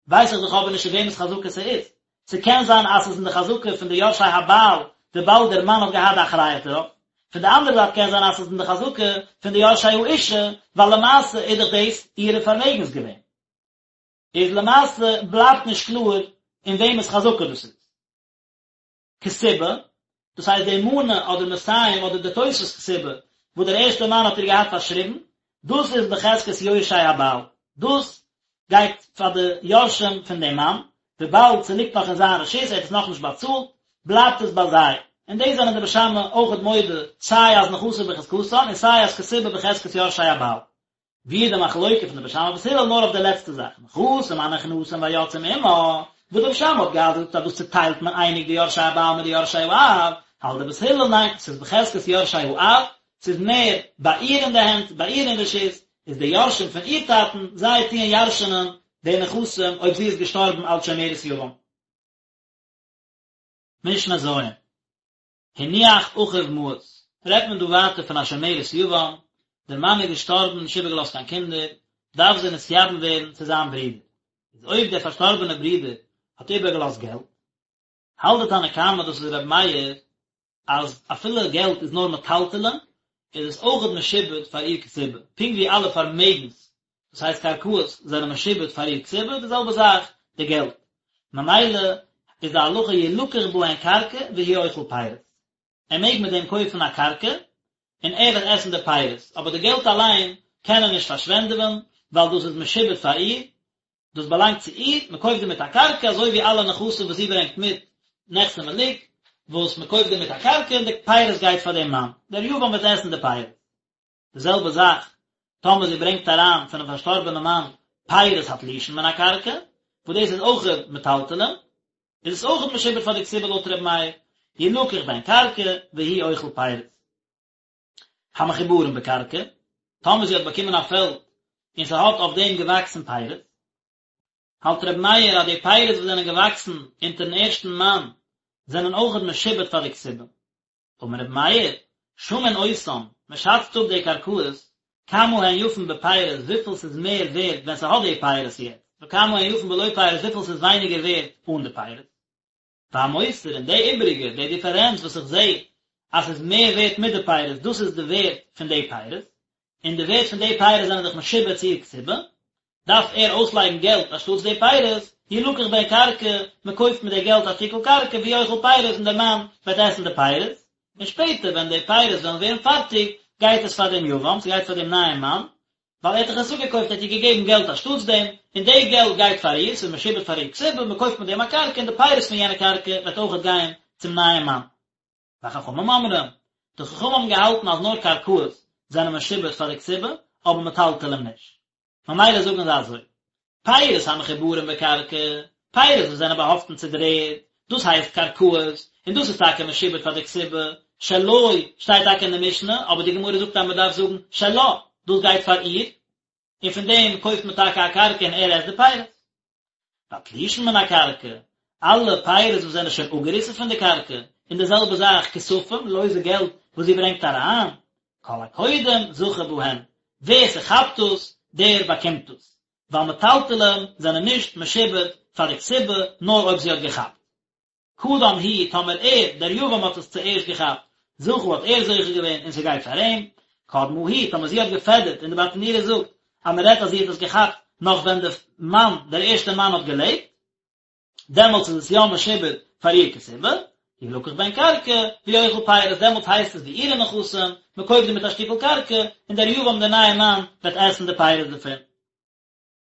ווייס איך דאך אבער נישט אין וועמענס חזקה ס'איז, ס'קען זיין אז ס'איז אין די חזקה פון די יורשי הבעל וויבאלד דער מאן האט געהאט די אחריות דערויף, פון די אנדערע זייט קען זיין אז ס'איז אין די חזקה פון די יורשי האישה, ווייל למעשה איז דאך דאס אירע פארמעגנס געווען. איז למעשה בלייבט נישט קלאר אין וועמענס חזקה דאס איז. כתובה, דאס הייסט די מנה אדער מאתים אדער די תוספת כתובה וואס דער ערשטער מאן האט איר געהאט פארשריבן, דאס איז בחזקת יורשי הבעל, דאס גייט פאר די יורשים פון דעם מאן, וויבאלד ס'ליגט נאך אין זיין רשות, ער האט עס נאכנישט באצאלט, בלייבט עס ביי זיי. און דאס זענען די בית שמאי אויכעט מודה, סיי אז נכסים בחזקתן און סיי אז כתובה בחזקת יורשי הבעל. ווי איז די מחלוקה פון די בית שמאי ובית הלל נאר אויף די לעצטע זאך, נכסים הנכנסים והיוצאים עמה, וואס די בית שמאי האט געהאט געזאגט אז דאס צוטיילט מען אייניג די יורשי הבעל מיט די יורשי האב, האלט די בית הלל ניין, ס'איז בחזקת יורשי האב, ס'איז מער ביי איר אין די הענט, ביי איר אין רשות, איז די יורשים פון איר טאטן, זיי טוען ירש'נען די נכסים אויב זי איז געשטארבן אלס שומרת יבם. משנה ז'. הניח אחיו מעות, רעדט מען דא ווייטער פון א שומרת יבם, דער מאן איז געשטארבן נישט איבערגעלאזט קיין קינדער, דארף זי נתייבם ווערן צו זיין ברודער, איז אויב דער פארשטארבענער ברודער האט איבערגעלאזט געלט, האלט די תנא קמא דאס איז רבי מאיר אז אפילו געלט איז נאר מטלטלין, איז עס אויכעט משועבד פאר איר כתובה, פונקט ווי אלע פארמעגנס, דאס הייסט קרקעות, זענען משועבד פאר איר כתובה, די זעלבע זאך די געלט. ממילא איז די הלכה ילקח בהן קרקע והוא אוכל פירות. ער מעג מיט דעם קויפן א קרקע, און ער וועט עסן די פירות, אבער די געלט אליין קען ער נישט פארשווענדעווען, ווייל דאס איז משועבד פאר איר, דאס באלאנגט צו איר, מען קויפט דערמיט א קרקע, אזוי ווי אלע נכסים וואס זי ברענגט מיט, נכסי מלוג, וואס מען קויפט דערמיט א קרקע און די פירות גייט פאר דעם מאן, דער יבם וועט עסן די פירות. די זעלבע זאך טאמער זי ברענגט אריין פונעם פארשטארבענעם מאן פירות התלושין מן הקרקע, וואס דאס איז אויך מטלטלין, איז עס אויך משועבד פאר די כתובה לויט ר' מאיר, ילקח בהן קרקע והוא אוכל פירות. המחוברין בקרקע, טאמער זי האט באקומען א פעלד און ס'האט אויף דעם געוואקסן פירות, האלט ר' מאיר אז די פירות וואס זענען געוואקסן אונטערן ערשטן מאן זענען אויכעט משועבד פאר די כתובה. אמר רבי מאיר, שמין אותן, מען שאצט אפ די קרקעות, כמה הן יפין בפירות וויפיל ס'איז מער ווערט ווען ס'האט די פירות יעצט, וכמה הן יפין בלא פירות וויפיל ס'איז ווייניגער ווערט אן די פירות. והמותר און די איבעריגע, די דיפערענץ וואס איך זע אז ס'איז מער ווערט מיט די פירות, דאס איז די ווערט פון די פירות, און די ווערט פון די פירות זענען דאך משועבד צו איר כתובה, דארף ער אויסלייגן געלט אנשטאטס די פירות, ילקח בהן קרקע, מען קויפט מיט די געלט א שטיקל קרקע והוא אוכל פירות און דער מאן וועט עסן די פירות, און שפעטער ווען די פירות וועלן ווערן פארטיג גייט עס פאר דעם יבם, ס'גייט פאר דעם נייעם מאן, ווייל ער האט דאך עס אפגעקויפט ער האט איר געגעבן געלט אנשטאטס דעם, און די געלט גייט פאר איר, ס'איז משועבד פאר איר כתובה, מען קויפט מיט דעם א קרקע און די פירות פון יענע קרקע וועט אויכעט גיין צום נייעם מאן. וחכמים אומרים, די חכמים האבן געהאלטן אז נאר קרקעות זענען משועבד פאר די כתובה, אבער מטלטלים נישט. ממילא זאגן זיי אזוי, פירות המחוברים בקרקע, פירות וואס זענען באהאפטן צו דער ערד, דאס הייסט קרקעות, און דאס איז טאקע משועבד פאר די כתובה, שלו שטייט טאקע אין די משנה, אבער די גמרא זאגט אז מען דארף זאגן שלה, דאס גייט פאר איר, און פון דעם קויפט מען טאקע א קרקע און ער עסט די פירות. והתלושין מן הקרקע, אלע פירות וואס זענען שוין אפגעריסן פון די קרקע, און די זעלבע זאך כספים, לויזע געלט וואס זי ברענגט אריין, כל הקודם זכה בהן, ווער ס'כאפט דאס, דער באקומט דאס, ווייל מטלטלים זענען נישט משועבד פאר די כתובה נאר אויב זי האט געכאפט. קדם הוא, טאמער ער, דער יבם האט עס צוערשט געכאפט, זכה האט ער זוכה געווען און ס'גייט פאר אים, קדמה היא, טאמער זי האט געפעדערט און די ברטנורא זאגט אז מ'רעדט אז זי האט עס געכאפט נאך ווען די מאן, דער ערשטער מאן האט געלעבט, דעמאלטס איז עס יא משועבד פאר איר כתובה, ילקח בהן קרקע, והוא אוכל פירות, דעמאלטס הייסט עס ווי אירע נכסים, מ'קויפט דערמיט א שטיקל קרקע, און דער יבם דער נייער מאן וועט עסן די פירות דערפון.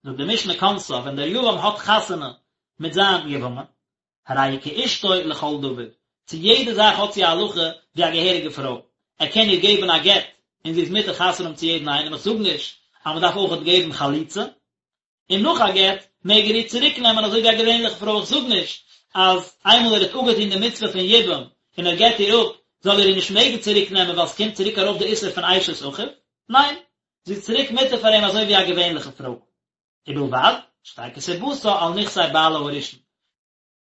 זאגט די משנה כנסה ווען דער יבם האט חתונה מיט זיין יבמה, הרי היא כאשתו לכל דבר, צו יעדע זאך האט זי א הלכה ווי א געהעריגע פרוי, ער קען איר געבן א גט און זי איז מותר חתונה האבן צו יעדן איינעם, איך זאג נישט אז מען דארף אויכעט געבן חליצה, און נאך א גט מעג ער איר צוריק נעמען אזוי ווי א געווענליכע פרוי, איך זאג נישט אז איינמאל ער האט אפגעטון די מצוה פון יבום און ער גט איר אפ זאל ער איר נישט מעגן צוריק נעמען ווייל ס'קומט צוריק ארויף די איסור פון אשת אחיו, ניין, זי איז צוריק מותר פאר אים אזוי ווי א געווענליכע פרוי. ובלבד שתהא כתובתה על נכסי בעלה הראשון.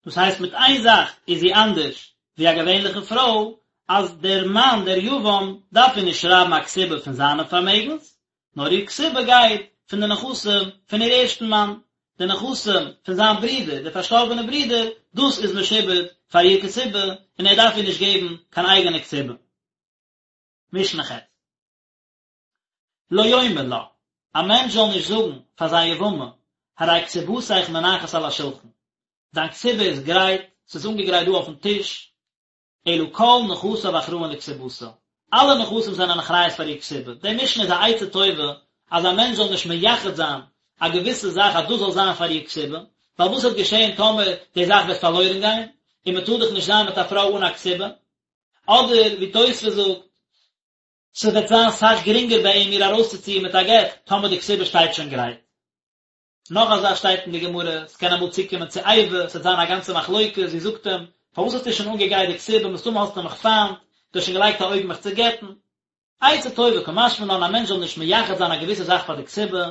דאס הייסט מיט איין זאך איז זי אנדערש ווי א געווענליכע פרוי, אז דער מאן דער יבם דארף איר נישט שרייבן א כתובה פון זיינע פארמעגנס, נאר איר כתובה גייט פון די נכסים פון איר ערשטן מאן, די נכסים פון זיין ברודער, דער פארשטארבענער ברודער, דאס איז משועבד פאר איר כתובה, און ער דארף איר נישט געבן קיין אייגענע כתובה. משנה ח'. לא יאמר לה, א מענטש זאל נישט זאגן פאר זיין יבמה, הרי כתובתיך מונחת על השולחן, דיין כתובה איז גרייט, ס'איז אנגעגרייט דא אויפן טיש, אלא כל נכסיו אחראין לכתובתה, אלע נכסים זענען אחריות פאר איר כתובה, די משנה איז א עצה טובה אז א מענטש זאל נישט מייחד זיין א געוויסע זאך אז דאס זאל זיין פאר איר כתובה, ווייל וואס וועט געשען טאמער די זאך וועט פארלוירן גיין, און מען טאר דאך נישט זיין מיט א פרוי אן א כתובה, אדער ווי תוספות זאגט, ס'וועט זיין סאך גרינגער ביי אים איר ארויסצוציען מיט א גט טאמער די כתובה שטייט שוין גרייט. נאך א זאך שטייט אין די גמרא, ס'קען אמאל צוקומען צו איבה, ס'וועט זיין א גאנצע מחלוקת, זי זאגט אים, פארוואס האסטו שוין אנגעגרייט די כתובה, מסתמא האסטו מיך פיינט, דו האסט שוין געלייגט א אויג מיך צו גט'ן. עצה טובה קא משמע לן א מענטש זאל נישט מייחד זיין א געוויסע זאך פאר די כתובה,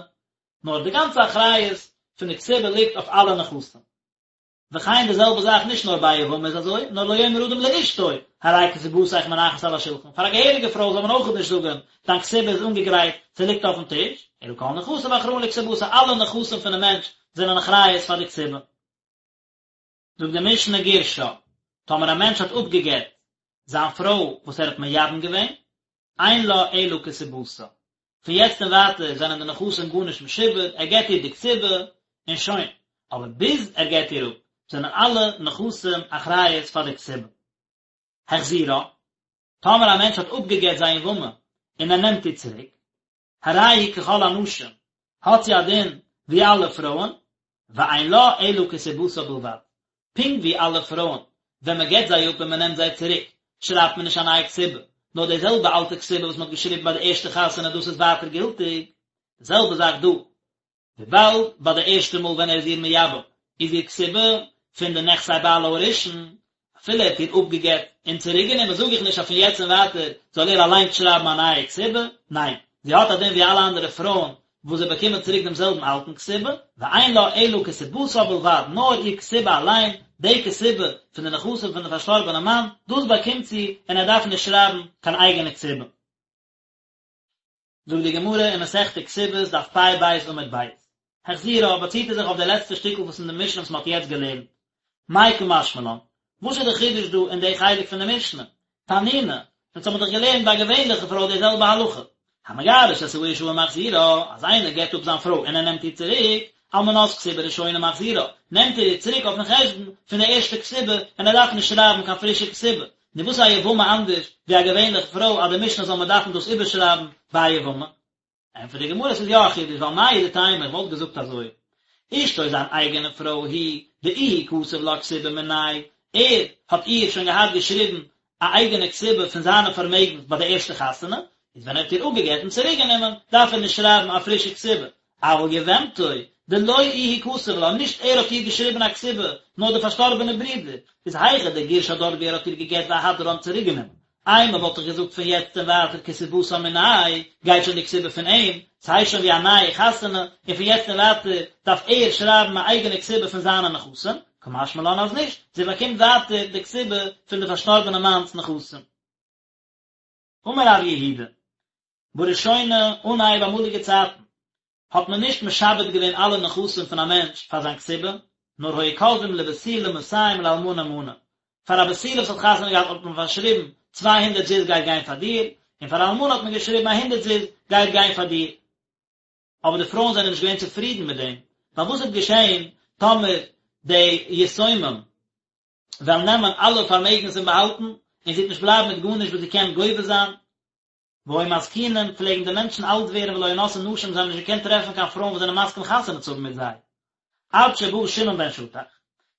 נאר די גאנצע אחריות פון די כתובה ליגט אויף אלע נכסים. וכן די זעלבע זאך נישט נאר ביי א יבמה איז אזוי, נאר לא יאמר אדם לאשתו, הרי כתובתיך מונחת על השולחן, פאר א געהעריגע פרוי זאל מען אויכעט נישט זאגען, דיין כתובה איז אנגעגרייט, ס'ליגט אויפן טיש, אלא כל נכסיו אחראין לכתובתה, אלע נכסים פונעם מענטש זענען אחריות פאר די כתובה. זאגט די משנה גירשה, טאמער א מענטש האט אפגעגט זיין פרוי וואס ער האט מייבם געווען, אין לה אלא כתובתה. פון יעצט און ווייטער זענען די נכסים גארנישט משועבד, ער געט איר די כתובה און שוין. אבער ביז ער געט איר אפ, זענען אלע נכסים אחריות פאר די כתובה. החזירה, טאמער א מענטש האט אפגעגט זיין יבמה און ער נעמט איר צוריק, הרי היא ככל הנשים, האט זי א דין ווי אלע פרויען, ואין לה אלא כתובתה בלבד, פונקט ווי אלע פרויען, ווען מען גט זיי אפ און מען נעמט זיי צוריק, שרייבט מען נישט א נייע כתובה, נאר די זעלבע אלטע כתובה וואס מען האט געשריבן ביי די ערשטע חתונה דאס איז ווייטער גילטיג, די זעלבע זאך דא, וויבאלד ביי די ערשטע מאל ווען ער איז איר מייבם איז איר כתובה פון די נכסי בעלה הראשון, אפילו ער האט איר אפגעגט און צוריק גענומען זאג איך נישט אז פון יעצט און ווייטער זאל ער אליינס שרייבן א נייע כתובה, ניין, זי האט א דין ווי אלע אנדערע פרויען וואס זיי באקומען צוריק דעם זעלבן אלטן כתובה, ואין לה אלא כתובתה בלבד, נאר איר כתובה אליין, די כתובה פון די נכסים פון די פארשטארבענע מאן, דאס באקומט זי און ער דארף נישט שרייבן קיין אייגענע כתובה. זאגט די גמרא אין מסכת כתובות דף פ ב עמוד ב, החזירה באציט ער זיך אויף די לעצטע שטיקל וואס אין די משנה וואס מען האט יעצט געלערנט, מאי קא משמע לן, וואס איז די חידוש דא אין די חלק פון די משנה? תנינא, אונז האבן דאך געלערנט ביי א געווענליכע פרוי די זעלבע הלכה, המגרש את האשה ומחזירה, אז איינער גט אפ זיין פרוי און ער נעמט איר צוריק, על מנת כתובה ראשונה מחזירה, נעמט ער איר צוריק אויפן חשבון פון די ערשטע כתובה און ער דארף נישט שרייבן קיין פרישע כתובה, נו וואס איז א יבמה אנדערש ווי א געווענליכע פרוי אז די משנה זאל מען דארפן דאס איבערשרייבן ביי א יבמה? ענטפערט די גמרא ס'איז יא א חידוש ווייל מהו דתימא איך וואלט געזאגט אזוי אשתו זיין אייגענע פרוי היא דאיהו כתב לה כתובה מיניה ער האט איר שוין געהאט געשריבן א אייגענע כתובה פון זיינע פארמעגנס ביי די ערשטע חתונה איז ווען ער האט איר אפגעגט און צוריק גענומען דארף ער נישט שרייבן א פרישע כתובה אבל יבמתו דלא איהו כתב לה נישט ער האט איר געשריבן א כתובה נאר די פארשטארבענע ברודער איז היכא דגירשה דארט ווי ער האט איר געגט ואהדרה און צוריק גענומען אימא וואלט איך געזאגט פון יעצט און ווייטער כתובתה מיניה, גייט שוין די כתובה פון אים, ס'הייסט שוין ווי א נייע חתונה, און פון יעצט און ווייטער דארף ער שרייבן א אייגענע כתובה פון זיינע נכסים, קא משמע לן אז נישט, זי באקומט ווייטער די כתובה פון די פארשטארבענע מאנ'ס נכסים. אמר רב יהודה, בראשונה, אנהייב אמאליגע צייטן, האט מען נישט משעבד געווען אלע נכסים פון א מענטש פאר זיין כתובה, נאר היו כותבים לבתולה מאתים ולאלמנה מנה, פאר א בתולה וואס האט חתונה געהאט האט מען פארשריבן 200 זוז גייט גיין פאר דיר, און פאר א אלמנה האט מען געשריבן א הונדערט זוז גייט גיין פאר דיר. אבער די פרויען זענען נישט געווען צופרידן מיט דעם, ווייל וואס וועט געשען טאמער די יתומים וועלן נעמען אלע פארמעגנס און באהאלטן, און זי וועט נישט בלייבן מיט גארנישט וואס זי קען גובה זיין, והיו מזקינים, פלעגן די מענטשן אלט ווערן ולא היו נושאין נשים, זיי האבן נישט געקענט טרעפן קיין פרויען וואס זענען מסכים חתונה צו האבן מיט זיי. עד שבא שמעון בן שטח,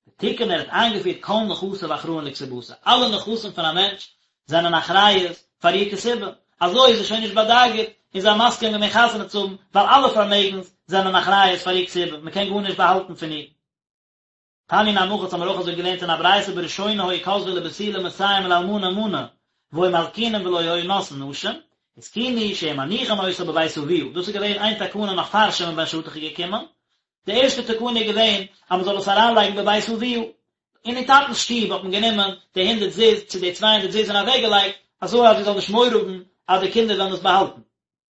ותיקן ער האט איינגעפירט כל נכסיו אחראין לכתובתה, אלע נכסים פון א מענטש זענען אחריות פאר איר כתובה, אזוי איז זי שוין נישט באדאגה'ט און זיי מסכים געווען חתונה צו האבן, ווייל אלע פארמעגנס זענען אחריות פאר איר כתובה, מען קען גארנישט באהאלטן פון איר. תניא נמי הכי האבן מיר אויך אזוי געלערנט אין א ברייתא בראשונה היו כותבין לבתולה מאתים ולאלמנה מנה והיו מזקינים ולא היו נושאין נשים, התקינו שיהו מניחין אותה בבית אביה, דאס איז געווען איין תקנה נאך פאר שמעון בן שטח איז געקומען, די ערשטע תקנה איז געווען אז מען זאל עס אריינלייגן בבית אביה, אין איר טאטנ'ס שטוב האט מען גענומען די הונדערט זוז צו די 200 זוז און אוועקגעלייגט אזוי אז זי זאל נישט מורא האבן אז די קינדער וועלן עס באהאלטן.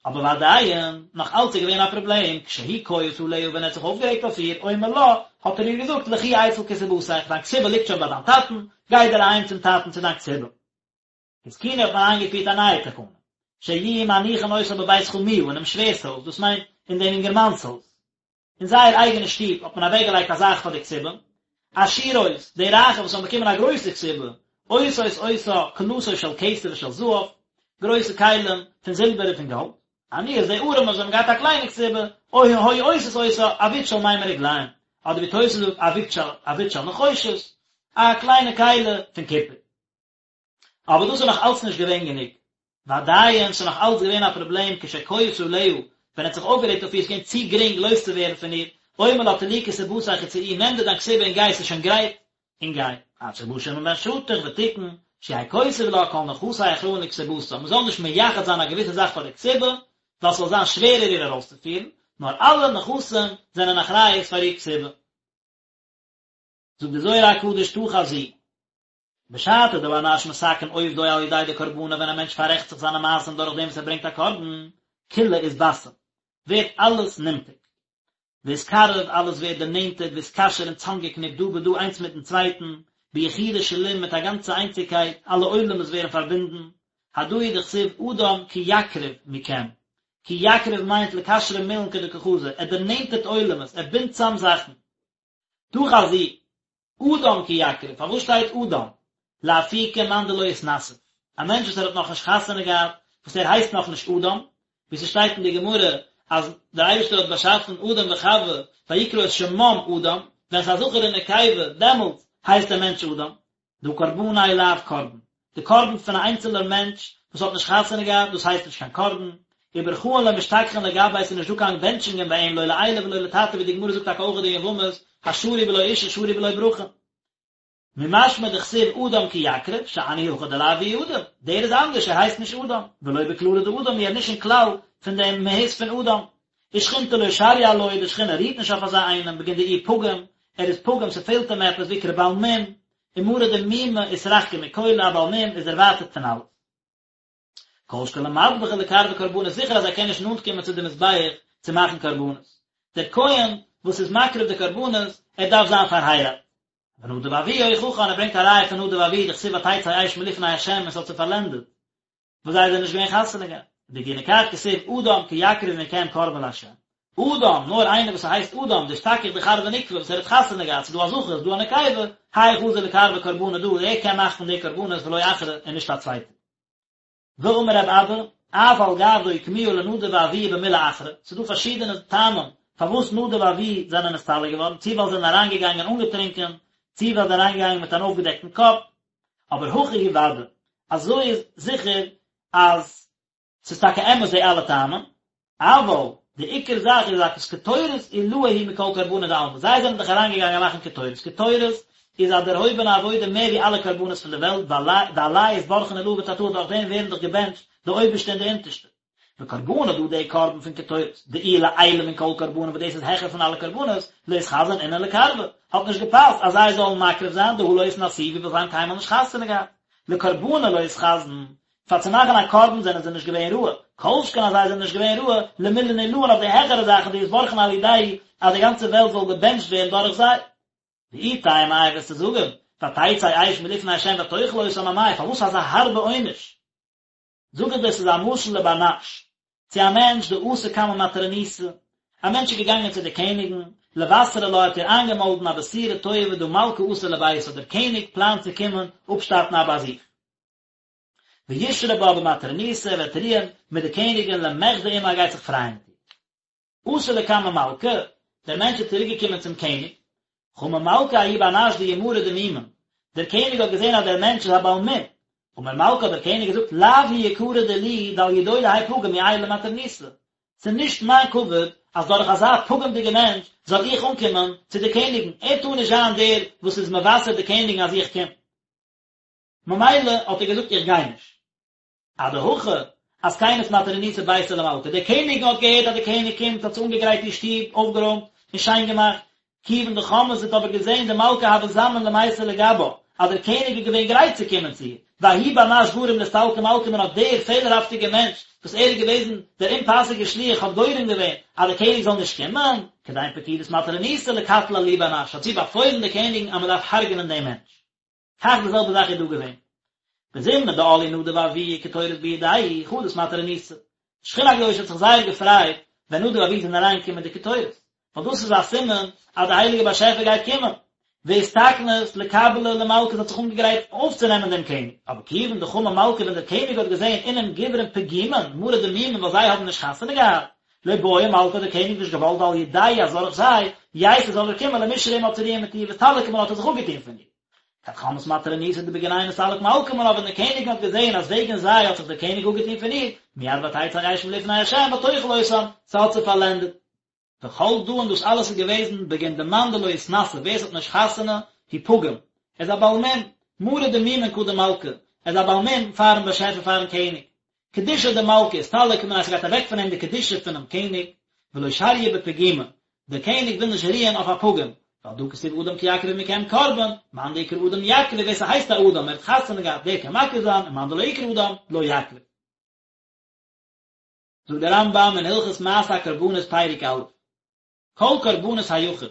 אבער ועדיין, נאך אלץ איז געווען א פראבלעם, כשהוא כועס עליה ווען ער האט זיך אויפגערעגט אויף איר, אומר לה, האט ער איר געזאגט, לכי אצל כתובתיך, דיין כתובה ליגט שוין ביי דיין טאטן, גיי דיר אהיים צום טאטן צו דיין כתובה. התקינו האט מען איינגעפירט א נייע תקנה, שיהיו מניחין אותה בבית חמיה, אינעם שווער'ס הויז, דאס מיינט אין דעם אינגערמאנ'ס הויז. אין זייער אייגענע שטוב האט מען אוועקגעלייגט א זאך פאר די כתובה. עשירות, די רייכע וואס האבן באקומען א גרויסע כתובה, עושות אותה כלתו של כסף ושל זהב, גרויסע כלים פון זילבער און פון גאלד, עניות די ארעמע וואס האבן געהאט א קליינע כתובה, או היו עושות אותה עבית של מימי רגליים, אדער ווי תוס' זאגט עבית של עבית של נחושת, א קליינע כלי פון קופער. אבער דאס איז נאך אלץ נישט געווען גענוג. ועדיין, ס'איז נאך אלץ געווען א פראבלעם כשכועס עליה, ווען ער האט זיך אויפגערעגט אויף איר, ס'איז געווען צו גרינג לויז צו ווערן פון איר, אומר לה טלי כתובתיך וצאי, נעם דיר דיין כתובה און גיי, ס'איז שוין גרייט, און גיי. עד שבא שמעון בן שטח ותיקן, שיהא כותב לה כל נכסי אחראין לכתובתה, מ'זאל נישט מייחד זיין א געוויסע זאך פאר די כתובה, ווייל ס'זאל זיין שווערער איר ארויסצופירן, נאר אלע נכסים זענען אחריות פאר איר כתובה. זאגט די זוהר הקדוש תא חזי. בשעתא דבר נש מתקן עובדוי על ידי דקרבנא ווען א מענטש פאררעכט זיך זיינע מעשים דורך דעם וואס ער ברענגט א קרבן, כולא אתבסם, ווערט אלעס נמתק. ואתקרב, אלעס ווערט דערנענטערט, ואתקשר און צאמגעקניפט דא בדא איינס מיטן צווייטן, ביחודא שלים מיט א גאנצע איינציגקייט, אלע עולמות ווערן פארבינדן, הדא הוא דכתיב אדם כי יקריב מכם, כי יקריב מיינט לקשרא מילין כדקא חזי, ער דערנענטערט עולמות, ער בינדט צאם זאכן. תא חזי, אדם כי יקריב, פארוואס שטייט אדם? לאפוקי מאן דלא אתנסיב, א מענטש וואס ער האט נאכנישט חתונה געהאט, וואס ער הייסט נאכנישט אדם, ווי ס'שטייט אין די גמרא אז דער אייבערשטער האט באשאפן אדם וחוה ויקרא את שמם אדם, ווען ס'איז א זכר און נקבה דעמאלטס הייסט דער מענטש אדם. דהא קרבניה לאו קרבן, די קרבן פון א איינצעלער מענטש וואס האט נישט חתונה געהאט, דאס הייסט נישט קיין קרבן, וברכאן לא משתכחין לגביה ס'איז נישט דא קיין בענטשונגען ביי אים לא לעילא ולא לתתא ווי די גמרא זאגט טאקע אויך אין יבמות, השרוי בלא אישה שרוי בלא ברכה. ממשמע דכתיב אדם כי יקריב, שאני הכא דלאו איהו אדם, דער איז אנדערש ער הייסט נישט אדם, ולא בכללא דאדם הוא ער איז נישט אין כלל פון דעם מהות פון אדם. ושכינתא לא שריא עלוי, די שכינה רוהט נישט אויף אזא איינעם, בגין דאיהו פגים, ער איז פגום ס'פעלט אים עפעס, ואקרי בעל מום, ומרא דמומא אתרחקא מכולא, א בעל מום איז דערווייטערט פון אלעס. כל שכן למדבחא לקרבא קרבנות, זיכער אז ער קען נישט נאנט קומען צו די מזבח צו מאכן קרבנות. דער כהן וואס איז מקריב די קרבנות, ער דארף זיין פארהייראט. ונדב ואביהוא הוכיחן, ער ברענגט א ראיה פון נדב ואביהוא דכתיב ותצא אש מלפני ה' און ס'האט זיי פארלענדעט. וואס זיי זענען נישט געווען חתונה געהאט. ובגיני כך כתיב אדם כי יקריב מכם קרבן לה'. אדם, נאר איינער וואס הייסט אדם, דאשתכח דכר ונוקבא וואס ער האט חתונה געהאט, ס'איז דא א זכר, ס'איז דא א נקבה, האי חזי לקרבא קרבנא דא, ער קען מאכן די קרבנות ולא אחרא און נישט א צווייטער. ואמר רב אבא, אף על גב דאוקמוה לנדב ואביהוא במילי אחרא, ס'איז דא פארשידענע טעמים פארוואס נדב ואביהוא זענען נסתלק געווארן, צי ווייל זיי זענען אריינגעגאנגען אנגעטרינקען, צי ווייל זיי זענען אריינגעגאנגען מיט אן אויפגעדעקטן קאפ, אבער הכי הוא ודאי, אזוי איז זיכער אז ס'איז טאקע אמת די אלע טעמים, אבל די עיקר זאך איז אז קטורת עילאה היא מכל קרבנא דעלמא, זיי זענען דאך אריינגעגאנגען מאכן קטורת, קטורת איז א דערהויבענע עבודה מער ווי אלע קרבנות פון די וועלט, דעליה אתברכון עילאה ותתאה דורך דעם ווערן דאך געבענטשט די אויבערשטע און די אונטערשטע. וקרבנא דא די קרבן פון קטורת, דאיהו לעילא מן כל קרבנא וואס דאס איז העכער פון אלע קרבנות, לא אתחזון אינון לקרבא, האט נישט געפאסט אז זיי זאלן מקריב זיין, דהא לא אתנסיבו ווייל זיי האבן קיינמאל נישט חתונה געהאט. לקרבנא לא אתחזון, פאר צו מאכן א קרבן זענען זיי נישט געווען ראוי, כל שכן אז זיי זענען נישט געווען ראוי, למילין עילאין אויף די העכערע זאכן דאתברכון על ידייהו אז די גאנצע וועלט זאל געבענטשט ווערן דורך זיי. ואי תימא איי וועסטו זאגן, ותצא אש מלפני ה' ותאכל אותם אמאי, פארוואס אזא הארבע עונש? זאג איך דיר ס'איז א משל לבר נש, צו א מענטש דאתא קמי מטרוניתא, א מענטש איז געגאנגען צו די קעניגן, לבשרא לה האט איר איינגעמאלדן א בשורה טובה דהא מלכא אתי לביתה, דער קעניג פלאנט צו קומען אפשטאטן א באזוך. וישרי בה במטרוניתא ער וועט רוען מיט די קעניגן למחדי עמה ער גייט זיך פרייען מיט איר. אתא לקמי מלכא, דער מענטש איז צוריק געקומען צום קעניג, חמא מלכא ההוא בר נש דאיהו מרא דמומין, דער קעניג האט געזען אז דער מענטש איז א בעל מום, אמר מלכא האט דער קעניג געזאגט לאו הוא יקרא דילי דעל ידוי דהאי פגים איעול למטרוניתא, ס'איז נישט מיין כבוד אז דורך אזא פגום'דיגע מענטש זאל איך אנקומען צו די קעניגן, ער טאר נישט זיין דער וואס איז מבשר די קעניגן אז איך קום. ממילא האט ער געזאגט איך גיי נישט. אדהכי אתקנת מטרוניתא ביתא למלכא, די קעניגן האט געהערט אז די קעניג קומט האט זי אנגעגרייט איר שטוב, אויפגערוימט און שיין געמאכט, כיוון דחמאה זי האט אבער געזען דמלכא הוה זמין למיתי לגבה, אז דער קעניג איז געווען גרייט צו קומען צו איר, וההוא בר נש גרים לאסתלקא מלכא מינה האט דער פעלערהאפטיגער מענטש וואס ער איז געוועזן דער אומפאסיגער שליח האט גורם געווען אז דער קעניג זאל נישט קומען, כדין פקידת מטרוניתא לקטלא להו בר נש האט זי באפוילן די קעניגן אז מען דארף הרג'נען דעם מענטש. כך די זעלבע זאך איז דא געווען. בזמנא דעאלו נדב ואביהוא וקטורת בידייהו חדאת מטרוניתא. שכינה הקדושה האט זיך זייער געפרייט ווען נדב ואביהוא זענען אריינגעקומען מיט די קטורת, ווייל דאס איז א סימן אז די הייליגע באשעפער גייט קומען. ואתתקנת לקבליה למלכא זי האט זיך אנגעגרייט אויפצונעמען דעם קעניג, אבער כיוון דחמא מלכא ווען דער קעניג האט געזען אינון גוברין פגימין מרי דמומין ווייל זיי האבן נישט חתונה געהאט, לא בעא מלכא האט דער קעניג נישט געוואלט דעל ידייהו אז דורך זיי ייתי זאל ער קומען למישרי עמה צו רוען מיט איר ואסתלק מנה האט ער זיך אפגעטון פון איר. כד חמאת מטרוניתא דבגינייהו נסתלק מלכא מנה ווען די קעניגן האט געזען אז וועגן זיי האט זיך דער קעניג אפגעטון פון איר, מיד ותצא אש מלפני השם ותאכל אותם, ס'האט זיי פארלענדעט. וכל דא און דאס אלעס איז געוועזן בגין דמאן דלא אתנשי ווער ס'האט נישט חתונה הוא פגים, ער איז א בעל מום, מרי דמומין קדם מלכא, ער איז א בעל מום פארן באשעפער פארן קעניג. קדושה דמלכא אסתלק מניה ס'גייט אוועק פון אים די קדושה פונעם קעניג, ולא שריא בפגימא, דער קעניג וויל נישט רוען אויף א פגום, ועל דא כתיב אדם כי יקריב מכם קרבן, מאן דאיקרי אדם יקריב ווער ס'הייסט א אדם ער האט חתונה געהאט דער קען מקריב זיין און מאן דלא איקרי אדם לא יקריב. זאגט דער רמב"ם אין הלכות מעשה הקרבנות פרק א', כל קרבנות היחיד,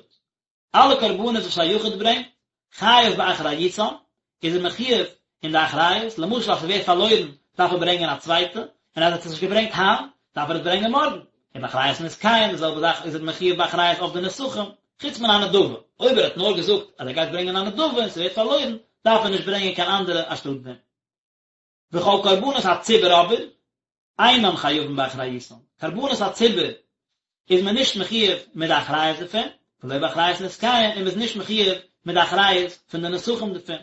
אלע קרבנות וואס א יחיד ברענגט, חייב באחריותן, איז ער מחיוב אין די אחריות, למשל אז ס'ווערט פארלוירן דארף ער ברענגען א צווייטע, און אז ער האט עס נישט געברענגט היינט, דארף ער עס ברענגען מארגן, ובאחריות נסכיהן, די זעלבע זאך איז ער מחיוב באחריות אויף די נסכים, חוץ מן הנדבה, אויב ער האט נאר געזאגט אז ער גייט ברענגען א נדבה און ס'ווערט פארלוירן, דארף ער נישט ברענגען קיין אנדערע אנשטאט דעם. וכל קרבנות הציבור אבער, אינן חייבין באחריותן, קרבנות הציבור איז מען נישט מחיוב מיט די אחריות דערפון, ולא באחריות נסכיהן, און מען איז נישט מחיוב מיט די אחריות פון די נסכים דערפון,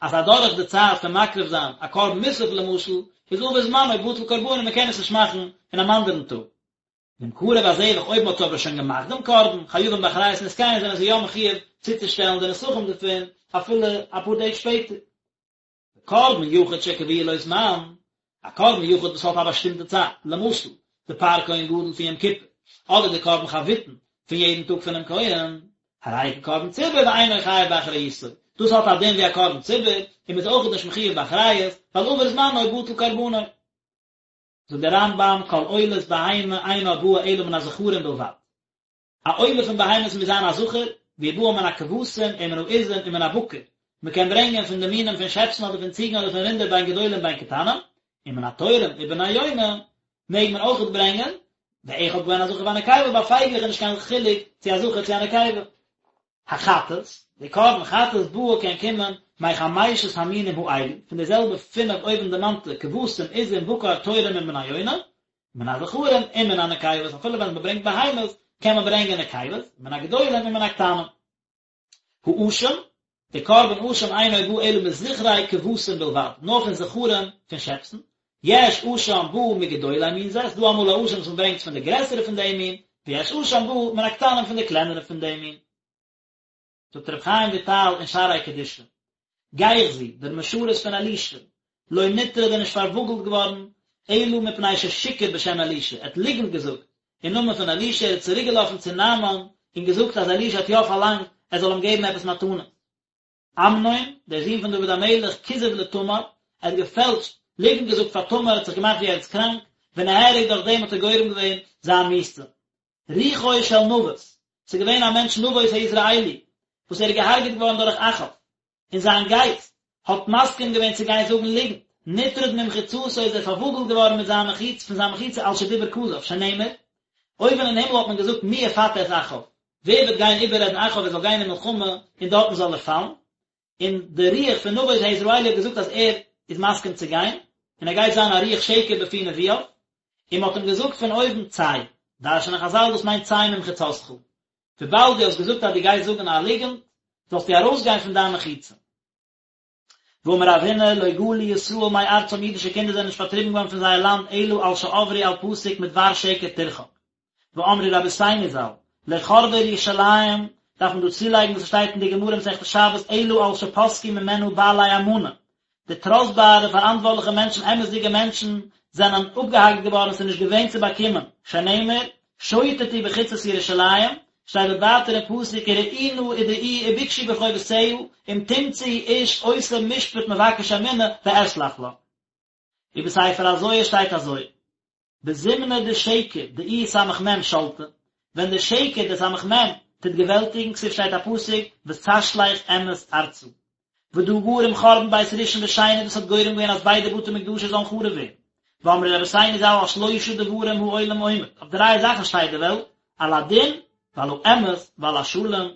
אז אדורך די צייט פון מקריב זיין א קרבן מוסף למשל, איז עבר זמנו בטל קרבנו מען קען עס נישט מאכן אין אן אנדערן טאג. ואם קרב הזבח אויב מען האט אבער שוין געמאכט דעם קרבן, חייבים באחריות נסכיהן זענען זיי יא מחיוב צוצושטעלן די נסכים דערפון אפילו אפאר טעג שפעטער. קרבן יחיד שקבוע לו זמן, א קרבן יחיד וואס האט א באשטימטע צייט, למשל, די פר כהן גדול פון יום כיפור, אדער די קרבן חביתין פון יעדן טאג פונעם כהן, הרי הוא כקרבן ציבור ואינו חייב באחריותו, דאס האט א דין ווי א קרבן ציבור, און מען איז אויכעט נישט מחיוב באחריות, ווייל עבר זמנו בטל קרבנו. זאגט דער רמב"ם, כל עולת בהמה אינה באה אלא מן הזכרים בלבד. א עולה פון בהמות מוז זיין א זכר, והיא באה מן הכבשים ומן העזים ומן הבקר, מען קען ברענגען פון די מינים פון שעפסן אדער פון ציגן אדער פון רינדער בין גדולים בין קטנים, ומן התורים ובני יונה מעג מען אויכעט ברענגען, ואחד בהן הזכר והנקבה, ביי פייגלעך איז נישט קיין חילוק צו א זכר צו א נקבה. החטאת, די קרבן חטאת באה קען קומען מחמשת המינים האלו, פון די זעלבע פינף אויבנדערמאנטע כבשים, עזים, בקר, תורים און בני יונה, מן הזכרים ומן הנקבות, אפילו ווען מען ברענגט בהמות קען מען ברענגען נקבות, מן הגדולים ומן הקטנים. האשם, די קרבן אשם אינו בא אלא מזכרי כבשים בלבד, נאר פון זכרים פון שעפסן, יש אשם בא מגדולי מין זה, ס'דא אמאל א אשם וואס מען ברענגט פון די גרעסערע פון דעם מין, ויש אשם בא מן הקטנים פון די קלענערע פון דעם מין. זאגט רבי חיים וויטאל אין שערי קדושה, גיחזי, דער משרת פון אלישע, לא נטרד איז נישט פארוואגלט געווארן, אלא מפני ששיקר בשם אלישע, ער האט ליגנט געזאגט אין נאמען פון אלישע, ער איז צוריק געלאפן צו נעמן און געזאגט אז אלישע האט יא פארלאנגט ער זאל אים געבן עפעס מתנות. אמנון, דער זון פון דוד המלך, כיזב לתמר, ער האט געפעלשט, ליגנט געזאגט פאר תמר, ער האט זיך געמאכט ווי ער איז קראנק, ונהרג דורך דעם האט ער גורם געווען זיין מיתה. רוחו של נבות, ס'איז געווען א מענטש נבות היזרעאלי, וואס ער איז געהארגעט געווארן דורך אחאב, און זיין גייסט האט מסכים געווען צו גיין זאגן ליגנט, נטרד ממחיצתו איז ער פארוואגלט געווארן מיט זיין מחיצה, פון זיין מחיצה על שדיבר כזב, שנאמר, אויבן אין הימל האט מען געזאגט מי יפתה את אחאב, ווער וועט גיין איבעררעדן אחאב ער זאל גיין אין מלחמה און דארטן זאל ער פאלן, און די רוח פון נבות היזרעאלי האט געזאגט אז ער איז מסכים צו גיין, און ער גייט זיין א רוח שקר בפי נביאיו, און מען האט אים געזאגט פון אויבן צא, דרש'נען חזל דאס מיינט צא ממחיצתך, וויבאלד דו האסט געזאגט אז דו גייסט זאגן א ליגנט, זאלסטו ארויסגיין פון דיין מחיצה. ואמר רב הונא, לא גלו ישראל מארצם אידישע קינדער זענען נישט פארטריבן געווארן פון זייער לאנד אלא על שעברו על פסוק מדבר שקר תרחק. ואמרו רבותינו ז"ל, לא חרבה ירושלים, דארף מען דא צולייגן וואס עס שטייט אין די גמרא מסכת שבת אלא על שפסקו ממנה בעלי אמנה, די טראסטבארע פאראנטווארטליכע מענטשן אמת'דיגע מענטשן זענען אפגעהאקט געווארן עס איז נישט געווען צו באקומען, שנאמר, שוטטו בחוצות ירושלים, שטייט דארט ווייטער אין פסוק וראו נא ודעו ובקשו ברחובותיה אם תמצאו איש עושה משפט מבקש אמונה ואסלח לה. ובספר הזוהר שטייט אזוי, בזמנא דשקר דאיהו סמך מם שלטא, ווען דער שקר דער סמך מם טוט געוועלטיגן, כתיב שטייט א פסוק ותשלך אמת ארצה, ודא גרים חורבן בית ראשון ושני דאס האט גורם געווען אז ביידע בתי מקדשות זאלן חרוב ווערן, ואמרו רבותינו ז"ל על שלושה דברים העולם עומד, אויף דריי זאכן שטייט די וועלט, על הדין ועל האמת ועל השלום.